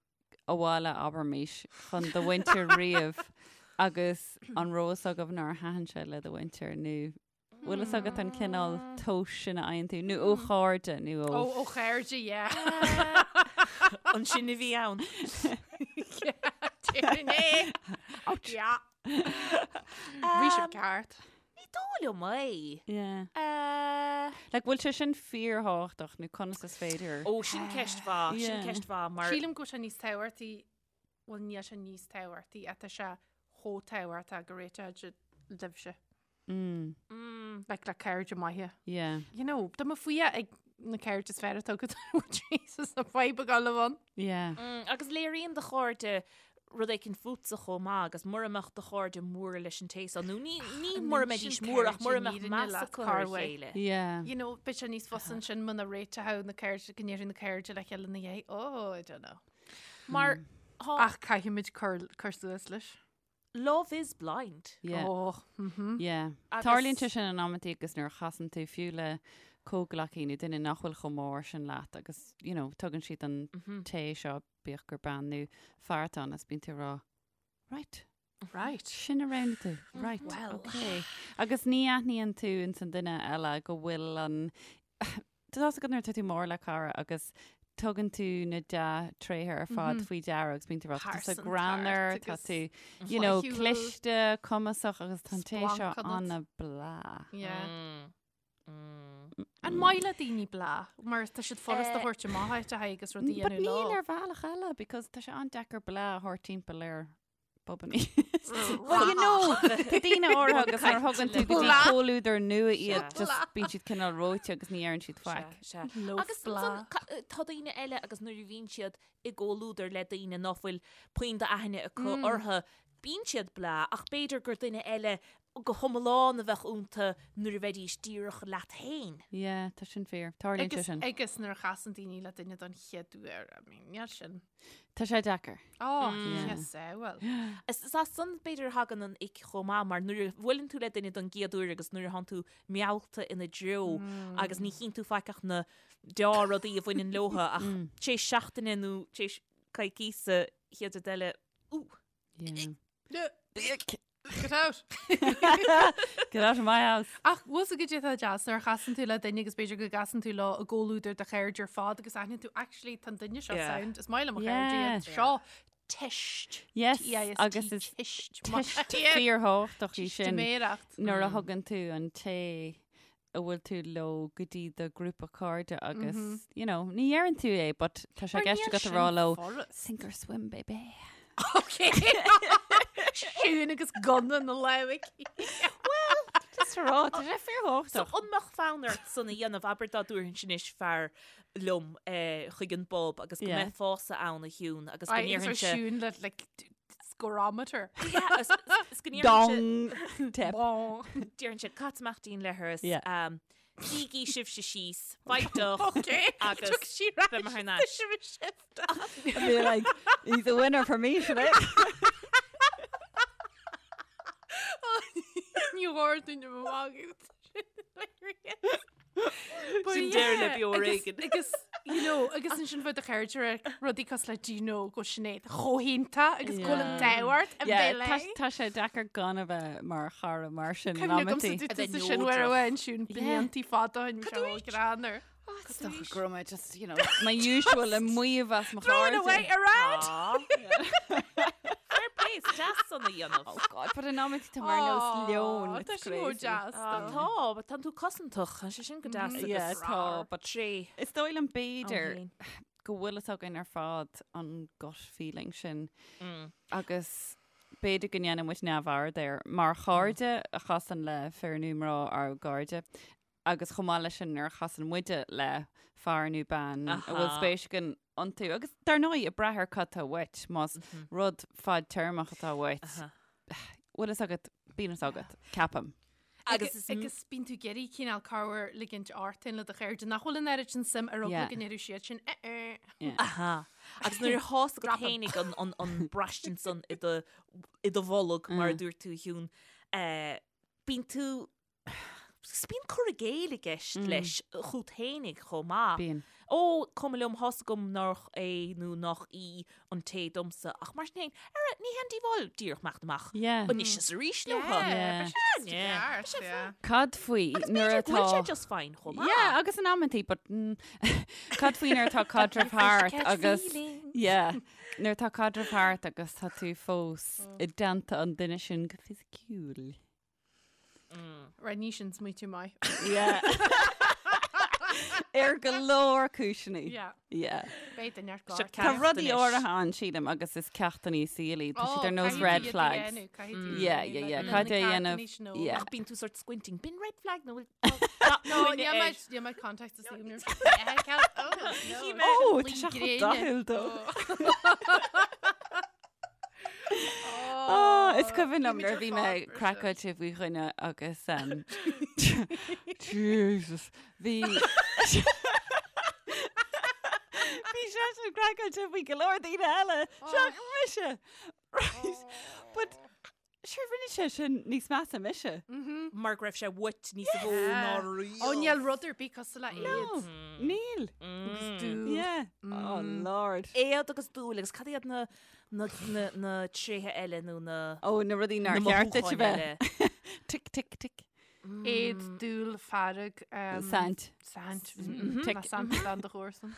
abhaile, abraimis, chun do mhuintir riamh agus an raibh fhios agaibh nár thaitin sé le do mhuintir nó bhfuil fhios agat an cineál tomhais sin a fhaigheann tú nó ó chairde nó ó.
Ó, ó chairde, yeah.
An sin a bhí ann.
Déarfainn é. Ouch. Yeah. Bhí sibh ceart.
Ní dóigh liom é.
Yeah. Like, bhfuil sé sin fíorthábhachtach nó conas is féidir?
Ó, sin ceist mhaith, sin
Yeah.
ceist mhaith mar.
Sílim go bhfuil sé níos tábhachtaí, bhuel níl sé níos tábhachtaí, ach tá sé chomh tábhachtach go réiteoidh libhse.
Mm.
Like le cairde maithe.
Yeah.
You know, tá mé faoi ag na cairde is fearr atá agat Jesus na fadhb a gabháil ann.
Yeah.
Mm, agus léiríonn do chairde rud éicint fútsa chomh maith agus mura mbeadh do chairde mór leis an té seo nó ní ní mura mbeidís mór ach mura mbeadh meas acu ar a chéile.
Yeah.
You know, beidh sé níos fusa ansin muna réiteoidh na cairde go ndéarfaidh na cairde le chéile ina dhiaidh. Oh, I don't know.
Mar
mm. Ach caithfimid cur cur suas leis.
Love is blind.
Yeah.
Oh, mhm.
Yeah.
Agus-
Tarlaíonn sé sin in amantaí agus nuair a chasann tú fiú le comhghleacaí nó duine nach bhfuil chomh mór sin leat agus, you know, tugann siad an té seo, bíodh gur bean nó fear atá ann, is bíonn tú ag rá, right,
Right.
sin a roghnaigh tú, right,
Well.
okay. Agus ní aithníonn tú ins an duine eile go bhfuil an Tá fhios agat nuair atá tú mór le cara agus tugann tú na dea-tréithe ar fad faoi deara agus bíonn tú ag rá, tá tú greannmhar, tá tú, you know, cliste, cumasach agus tá an té seo an-blah.
Yeah. An maith le daoine blah? Mar tá siad furast a thabhairt amach áit a haghaidh agus rudaí a
But
dhéanamh
níl
leo.
ar bhealach eile because tá sé an-deacair blah a thabhairt timpeall ar Bobannaí. Well, you know, tá daoine áirithe agus nuair a thugann tú go dtí comhluadar nua iad, just bíonn siad cineál reoite agus ní deireann siad faic.
Sea, sea. Agus ansan, tá daoine eile agus nuair a bhíonn siad i gcomhluadar le daoine ná fuil puinn d'aithne acu orthu, bíonn siad blah, ach b'fhéidir gur duine eile go hiomlán a bheadh iontu nuair a bheidís díreach leat féin.
Yeah, tá sin fíor. Tarlaíonn sé sin.
Agus nuair a chasann daoine le duine don chéad uair, I mean, níl sin.
Tá sé deacair.
Ó, yes, eh, well.
Is as san b'fhéidir a thagann an ick chomh maith mar nuair a bhuaileann tú le duine don gcéad uair agus nuair a thánn tú meallta ina dtreo agus ní chíonn tú faic ach na deá-rudaí a bhaineann leotha ach tar éis seachtaine nó tar éis coicíosa chéad rud eile, ú!
Yeah.
Get out!
Get out of my house.
Ach bhfuil fhios agat cad é atá deas nuair a chasann tú le duine agus b'fhéidir go gcasann tú leo i gcomhluadar do chairde ar fad agus aithníonn tú actually tá an duine seo
Yeah.
sound is maith liom mo chairde
Yeah.
iad seo teist.
Yes,
T-E-I-S-T,
agus is
teist.
teist fíorthábhachtach í sin
Teistiméireacht.
nuair a thugann tú an té a bhfuil tú leo go dtí do ghrúpa cairde agus, you know, ní dheireann tú é, but tá sé i gceist agat a rá leo, sink or swim, baby.
Ok. Siún agus gunna na lámh aici.
Well, just a rá, tá sé fíorthábhachtach.
So an mbeadh fonn ort san a dhéanamh, abair dá dtabharfainnse anois fear liom eh, chuig an bpub agus go mbeifeása ann a Shiún agus go ndéarfainnse...
Siún le like, Scorometer.
Yeah, is is go ndéarfainnse...
Dong! Tip.
Bong.
Déarfainnse cat amach dínn le thuras.
Yeah.
Um, Suígí sibhse síos, faigh deoch
Okay.
agus
Took sí right.
beidh mé thar n-ais.
Sibh shift.
I'd be like, he's a winner for me, today.
Ní gháir duine mo mhagadh.
Sin deireadh le beo ar éigean.
Agus, you know, agus ansin bheadh do chairde ag rudaí cosúil le do you know go Sinéad chomh hiontach agus go bhfuil an t-ádh ort a
Yeah,
bheith
tá
léi.
tá sé deacair gan a bheith mar chara mar sin in
Cuimhne agamsa
amantaí.
dúirt
A bheith
tusa sin uair
neodrach.
amháin Siún bliantaí fada ó shin bhí sé chomh greannmhar.
Is dócha go raibh mé just, you know, my usual ag maíomh as mo
Throwing
chairde.
away around!
Fair play. deas san a dhéanamh.
Oh God, but in amantaí tá mar nós leon.
Tá
It's
sin chomh
crazy.
deas.
Ah,
though.
Tá, but tánn tú cosantach, tá sé sin go deas
Yeah,
agus
tá, but
tréith
is dóigh liom
ann
b'fhéidir
féin.
go bhfuil fhios againn ar fad an gut feeling sin agus b'fhéidir go ndéanann muid neamhaird air mar chairde a chasann le fir nó mná ár gcairde agus chomh maith leis sin nuair a chasann muide le fear nó bean a bhfuil spéis againn iontu agus dar ndóigh ag brath ar cad tá uait más rud fadtéarmach atá uait bhfuil fhios agat bíonn fhios agat ceapaim.
Agus is
Agus bíonn tú ag iarraidh cineál corruair ligint ort féin le do chairde nach bhfuil an oiread sin suim ar eagla go ndéarfadh siad sin eh eh.
Aha. Agus nuair atá fhios agat
Drop 'em.
fhéinig an, an, an braistint san i do, i do bholg mar a dúirt tú a Shiún, eh, bíonn tú Agus bíonn cur i gcéill i gceist leis chút fhéinig chomh maith.
Bíonn.
Ó, cuma liom, thá's agam nách é nó nách í an té domsa, ach mar sin féin, ara, ní haon díobháil díreach imeacht amach
Yeah.
anois is arís leo.
Yeah,
Yeah.
beidh sé just
Yeah.
ceart, yeah.
Cad faoi
Agus
nuair
b'fhéidir go bhfuil sé
atá
just fine chomh maith.
Yeah, agus in amantaí, but mm, cad faoi nuair atá caidreamh thart agus yeah, nuair atá caidreamh thart agus tá tú fós i dteannta an duine sin go fisiciúil.
Right, ní sin smaoitiú maith.
Yeah. Ar go leor cúiseanna.
Yeah.
Yeah.
Beidh duine ar
Seo
gcár.
Tá
ceacht
rudaí
anois.
áirithe ann sílim agus is ceachtanna saoil iad. Tá siad ar nós red flags. Yeah, yeah, yeah. Cad é a dhéanamh? Yeah.
Ach bíonn tú sort squinting. B'in red flag nó bhfuil
No, níl mé níl mé context is níl
Oh, tá sé chomh dathúil dó. Oh, is cuimhin liom nuair a bhí mé craiceáilte faoi dhuine agus um, Jesus, bhí Bhí seisean craiceáilte faoi go leor daoine eile, seachas mise. Right. But Sure, rinne sé sin níos measa mise.
Mar go raibh sé uait níos mó ná riamh.
Ó, níl rud ar bith cosúil le éad.
No, níl.
Agus dúil.
Yeah. Oh, Lord.
Éad agus dúil agus cad iad na na na na tréithe eile nó na
Ó, na rudaí nár
na
cheart duit a
mothúcháin
bheith.
eile.
Tic, tic, tic.
Éad, dúil, fearg.
Saint.
Saint.
Tic.
Ná saint dan do chomharsan.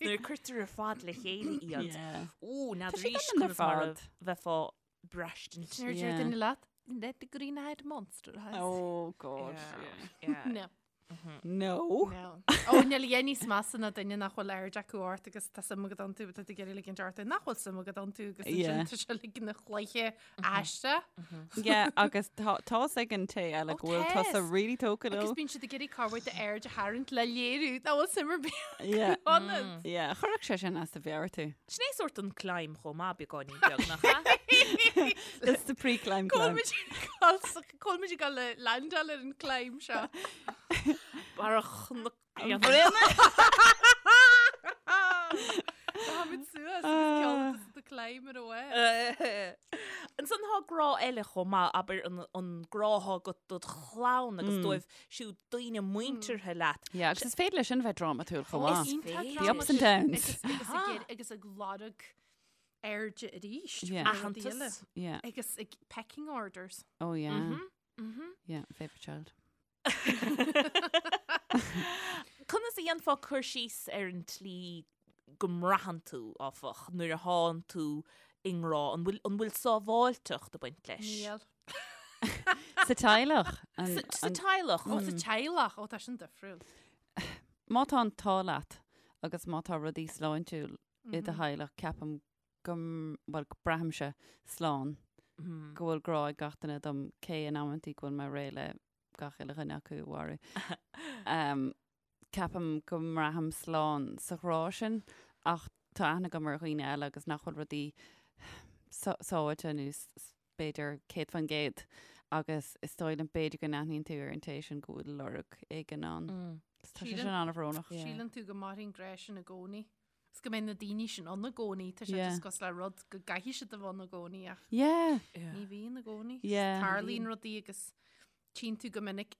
Nuair a cuirtear ar fad le chéile iad.
Yeah.
Ó,
Tá siad
n'fheadar
ann ar
conas mar a
fad.
bheifeá ag braistint.
Nuair a deir
Yeah.
duine leat, Let the green-eyed monster has.
Oh, God.
Yeah.
No.
No.
No. Ó, níl a dhath níos measa ná duine nach bhfuil aird acu ort agus tá suim agat iontu, tá tú ag iarraidh ligint ort nach bhfuil suim agat iontu agus
Yeah.
ansin tá sé ag ligean a chluiche aisteach.
Yeah, agus tá tá's ag an té eile
Ó,
go bhfuil tusa
tá's.
really tógtha
Agus
leo.
bíonn siad ag iarraidh corruair d'aird a tharraingt le léiriú nach bhfuil suim ar bith
Yeah.
ionat.
Yeah, chuirfeadh sé sin as do mheabhair tú.
Sin é sórt an climb chomh maith beagáinín beag nach ea?
That's the pre-climb climb.
Cá bhfuil muid ag dul le landáil ar an climb seo.
Barra Chnoc
Táimid suas agus ceol the climb ar away.
Ansan tá grá eile chomh maith, abair an, an grá atá agat dod chlann agus dóibh siúd daoine muinteartha leat.
Yeah, agus is féidir leis sin bheith drámatúil chomh maith.
Iontach
The ups and downs.
Agus, agus, ag iarraidh- agus ag lorg airde arís.
Yeah.
faoi rudaí eile.
Aitheantas.
Yeah.
Agus ag pecking orders.
Oh yeah.
Mhm.
Yeah, favourite child.
Conas a dhéanfá cur síos ar an tslí go mbraitheann tú, áfach, nuair a thánn tú i ngrá? An bhfuil, an bhfuil sábháilteacht ag baint leis?
Níl.
Sa teaghlach. An,
Sa, sa
an,
teaghlach.
Ó, sa teaghlach. Ó, tá sin difriúil.
má tá an t-ádh leat agus má tá rudaí sláintiúil i do theaghlach, ceapaim go, bhuel, go braithimse slán, go bhfuil grá ag gach duine dom, cé in amantaí go bhfuil mé réidh le gach uile dhuine acu a mharú. Um, ceapaim go mbraithim slán sa ghrá sin, ach tá aithne agam ar dhaoine eile agus nach bhfuil rudaí sábháilte nó b'fhéidir 100% agus is dóigh liom b'fhéidir go n-aithníonn tú ar an té sin go bhfuil lorg éigin ann. Tá sé sin an-bhrónach.
Síleann tú go mairfidh an grá sin i gcónaí. Is go mbeidh na daoine sin ann i gcónaí. Tá sé
Yeah.
just cosúil le rud go gcaithfidh siad a bheith ann i gcónaí ach
Yeah.
ní bhíonn i gcónaí.
Yeah.
Tarlaíonn rudaí agus tchíonn tú go minic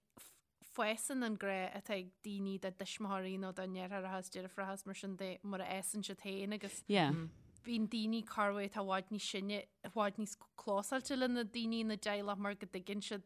fásann an grá atá ag daoine dá dtuismitheoirí nó dá ndeartháireacha is deirfiúracha is mar sin de mar a fhásann siad féin agus
Yeah.
bíonn daoine corruair atá i bhfad níos sine, i bhfad níos clósáilte le na daoine ina dteaghlach mar go dtuigeann siad,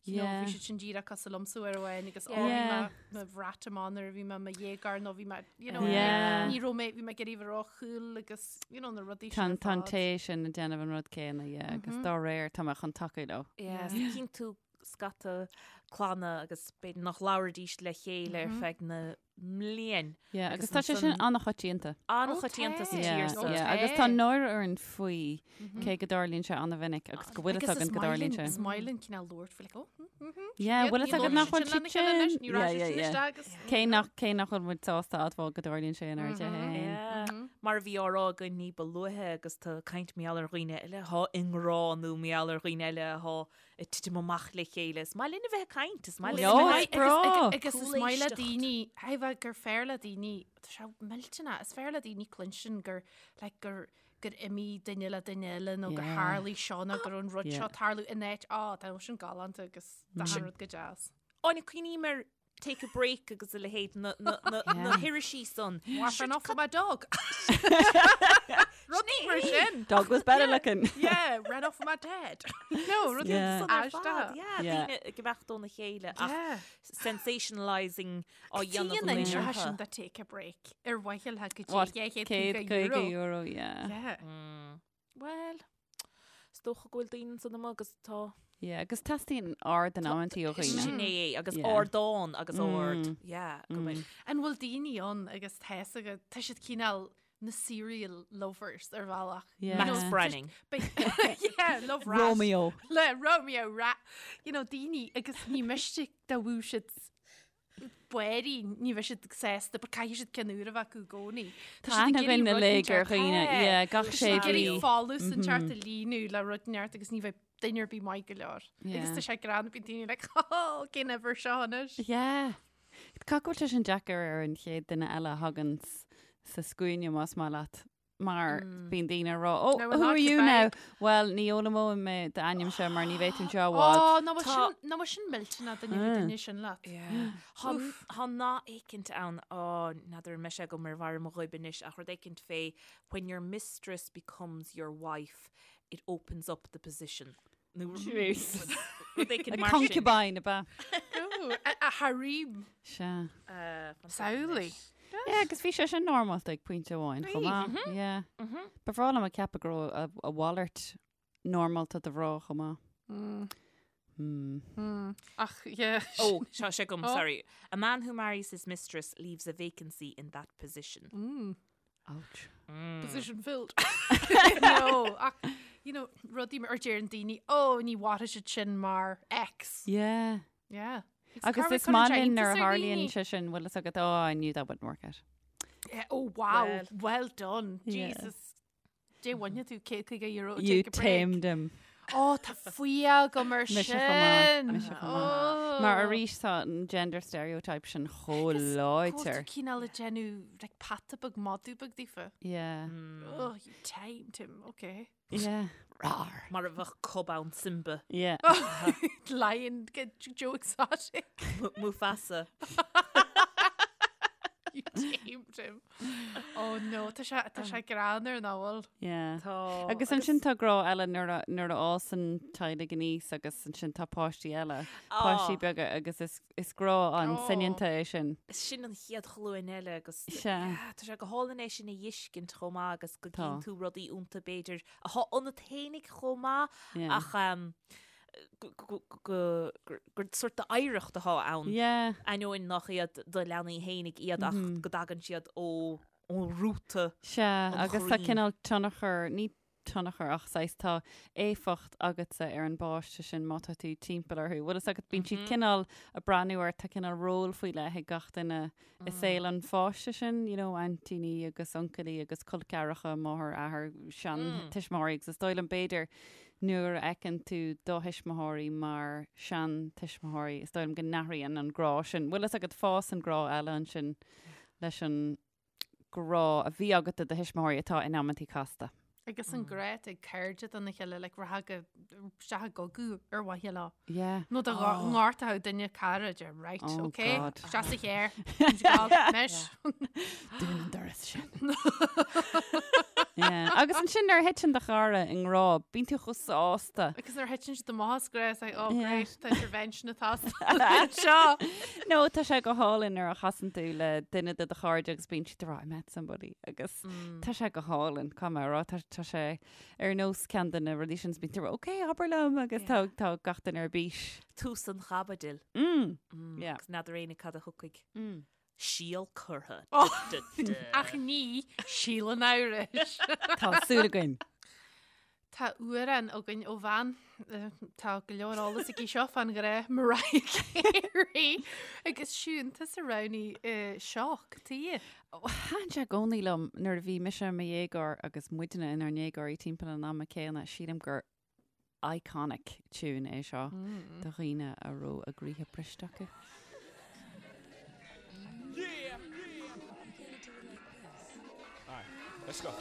you know, bhí siad sin díreach cosúil liomsa uair amháin agus ó, bhí mé mo bhrat amach nuair a bhí mé i mo dhéagóir nó bhí mé, you know, ní raibh mé, bhí mé ag iarraidh a bheith ró-cool agus, you know, na rudaí
sin ar fad. Tá an té sin ag déanamh an rud céanna, yeah, agus dá réir tá mé chun tacú leo.
Yeah, cíonn tú scata clanna agus b'fhéidir nach labhraídís le chéile ar feadh na mblian.
Yeah, agus tá sé sin an-choitianta.
An-choitianta sa tír
so. Yeah, agus tá náire orainn faoi cé go dtarlaíonn sé an-mhinic agus go bhfuil fhios againn go dtarlaíonn sé.
Is maith linn cineál labhairt faoi like, oh, mm,
Yeah, bhfuil fhios agat nach bhfuil siad sin. Yeah, yeah, yeah. Cé nach cé nach bhfuil muid sásta admháil go dtarlaíonn sé inár dtithe féin.
Yeah. Mar a bhí á rá againn ní ba luaithe agus tá caint mar gheall ar dhaoine eile atá i ngrá nó mar gheall ar dhaoine eile atá ag titim amach le chéile. Is maith linn a bheith ag caint, is maith linn a bheith
is breá.
Agus is maith le daoine, bheith gur fearr le daoine, tá sé millteanach, is fearr le daoine cluinstin gur, like, gur gur imigh duine le duine eile nó gur tharlaigh seo nó gur an rud seo tarlú in áit, á, tá sin galánta agus tá an rud go deas.
Áine, cuimhním ar Take a Break agus a leithéid na, na, na, na hirisí san.
Wife ran off with my dog. Rudaí mar sin.
Dog was better looking.
Yeah, ran off with my dad. No, rudaí
Yeah.
san ar fad.
Yeah,
Yeah.
daoine ag imeacht óna chéile ach
Yeah.
sensationalising á dhéanamh
Cén
an
inse sin
orthu.
de Take a Break ar mhaithe le go
What,
dtí 250
150
euro.
euro, yeah.
Yeah.
Well, is dócha go bhfuil daoine ansan amuigh agus tá.
Yeah, agus teastaíonn aird in amantaí ó dhaoine.
Sin é é, agus
Yeah.
ardán agus ard. Yeah, go mbeidh.
An bhfuil daoine ann agus tá fhios agat, tá siad cineál na serial lovers ar bhealach.
Yeah.
Max Branning.
Yeah, love rat.
Romeo.
Le Romeo rat. You know, daoine agus ní miste dá bhfuil siad bairí, ní bheidh siad sásta, but caithfidh siad ceann úr a bheith acu i gcónaí.
Tá aithne againn uilig ar dhaoine, yeah, gach sé
Ag
mhí.
iarraidh folús inteacht a líonadh le rud inteacht agus ní bheidh duine ar bith maith go leor. Agus tá sé greannmhar, bíonn daoine like, oh, cén uimhir seo anois?
Yeah. Caithfidh go bhfuil sé sin deacair ar an chéad duine eile a thagann sa scuaine más maith leat. mar bíonn daoine ag rá, oh,
Now
who
we're
are you
not
now?
goodbye.
Well, ní fhoghlaimeoidh mé d'ainmse mar ní bheidh tú anseo i bhfad.
Ó, ná bhfuil sin, ná bhfuil sin millteanach duine bheith duine sin leat.
Tá tá nath éicint ann, ó, n'fheadar an mbeidh sé agam ar bharr mo ghoib anois, ach rud éicint fé when your mistress becomes your wife, it opens up the position. Nó
Jeez.
rud éicint
A
mar sin.
concubine, ab ea?
Ó, a, a harem.
Sea.
Samhlaigh.
Yeah, agus bhí sé sin normálta ag pointe amháin chomh maith. Yeah. Ba bhreá liom a ceapadh go raibh a, a mhalairt normálta do mhná chomh maith. Hmm.
Ach, yeah.
Oh, seo sé agam,
Oh.
sorry. A man who marries his mistress leaves a vacancy in that position.
Ouch.
Position filled. No, ach, you know, rudaí mar deireann daoine, oh, ní mhairfidh siad sin mar ex.
Yeah.
Yeah.
Agus is maith linn nuair a tharlaíonn sé sin, bhfuil fhios agat, oh, I knew that wouldn't work out.
Yeah, oh, wow.
Well.
Well, done.
Yeah.
Jesus. Dé bhaine tú 150 euro
You
take a break.
tamed him.
Ó, tá fuath agam ar
Mise chomh maith,
sin.
mise chomh maith. Mar arís tá an gender stereotype sin chomh láidir.
Cineál ag déanamh like, peata beag madadh beag daofa.
Yeah.
Oh, you tamed him, okay.
Yeah. Rar.
Mar a bheadh cub ann Simba.
Yeah.
Lion, get Joe Exotic.
Mufasa.
You tamed him. Oh no, tá sé tá sé greannmhar nach bhfuil.
Yeah.
Tá.
Agus ansin tá grá eile nuair a nuair a fhásann teaghlaigh aníos agus ansin tá páistí eile, páistí beaga agus is is grá an
Oh.
soineanta é sin.
Sin an chéad ghlúin eile agus
Sea.
yeah, tá sé go hálainn é sin a fheiscint chomh maith agus go
Tá.
gcíonn tú rudaí iontu b'fhéidir atá ionat fhéinig chomh maith
Yeah.
ach um, gur sórt d'oidhreacht atá ann.
Yeah.
Ainneoin nach iad do leanaí fhéinig iad ach go dtagann siad ó rúta.
Sea,
An
agus tá
chroí.
cineál tionchar, ní tionchar ach saghas tá éifeacht agatsa ar an bpáiste sin má tá tú timpeall orthu. Bhfuil fhios agat, bíonn siad cineál ag breathnú ort, tá cineál ról faoi leith ag gach duine i saol an pháiste sin, you know, aintíní agus uncailí agus col ceathracha, máthair, athair, seantuismitheoirí agus is dóigh liom b'fhéidir Nuair a fheiceann tú do thuismitheoirí mar seantuismitheoirí, is dóigh liom go n-athraíonn an grá sin. Bhfuil fhios agat, fásann grá eile ansin leis an grá a bhí agat do do thuismitheoirí atá in amantaí casta.
Agus an grá atá ag cairde dona chéile, like rachfá go isteach i gcogadh ar mhaithe leo.
Yeah.
Nó dá ngortódh duine cara, deir right,
Oh,
okay,
God.
isteach sa charr, anois.
Dún an doras sin. Yeah. Agus ansin nuair a thiteann do chara i ngrá, bíonn tú chomh sásta.
Agus nuair a thiteann siad amach as grá, it's like, oh
Yeah.
great, tá intervention atá seo.
No, tá sé go hálainn nuair a chasann tú le duine de do chairde agus bíonn siad ag rá, I met somebody. Agus tá sé go hálainn, caithfidh mé a rá, tá tá sé ar nós ceann de na rudaí sin, bíonn tú ag rá, ok, abair liom, agus tá tá gach duine ar bís.
Tús an chaibidil.
Mm. Yeah.
Agus n'fheadar éinne cad a thiocfaidh. Síol curtha.
Ach ní síol an amhrais.
Tá súil againn.
Tá amhrán againn ó bhean, tá go leor eolas aici seo fán ghrá, Mariah Carey. Agus Siún, tusa a roghnaigh seo, cad chuige?
Thaitin sé i gcónaí liom nuair a bhí mise i mo dhéagóir agus muidne inár ndéagóirí timpeall an ama céanna, sílim gur iconic tune é seo do dhaoine a raibh a gcroíthe briste acu.
Let's go.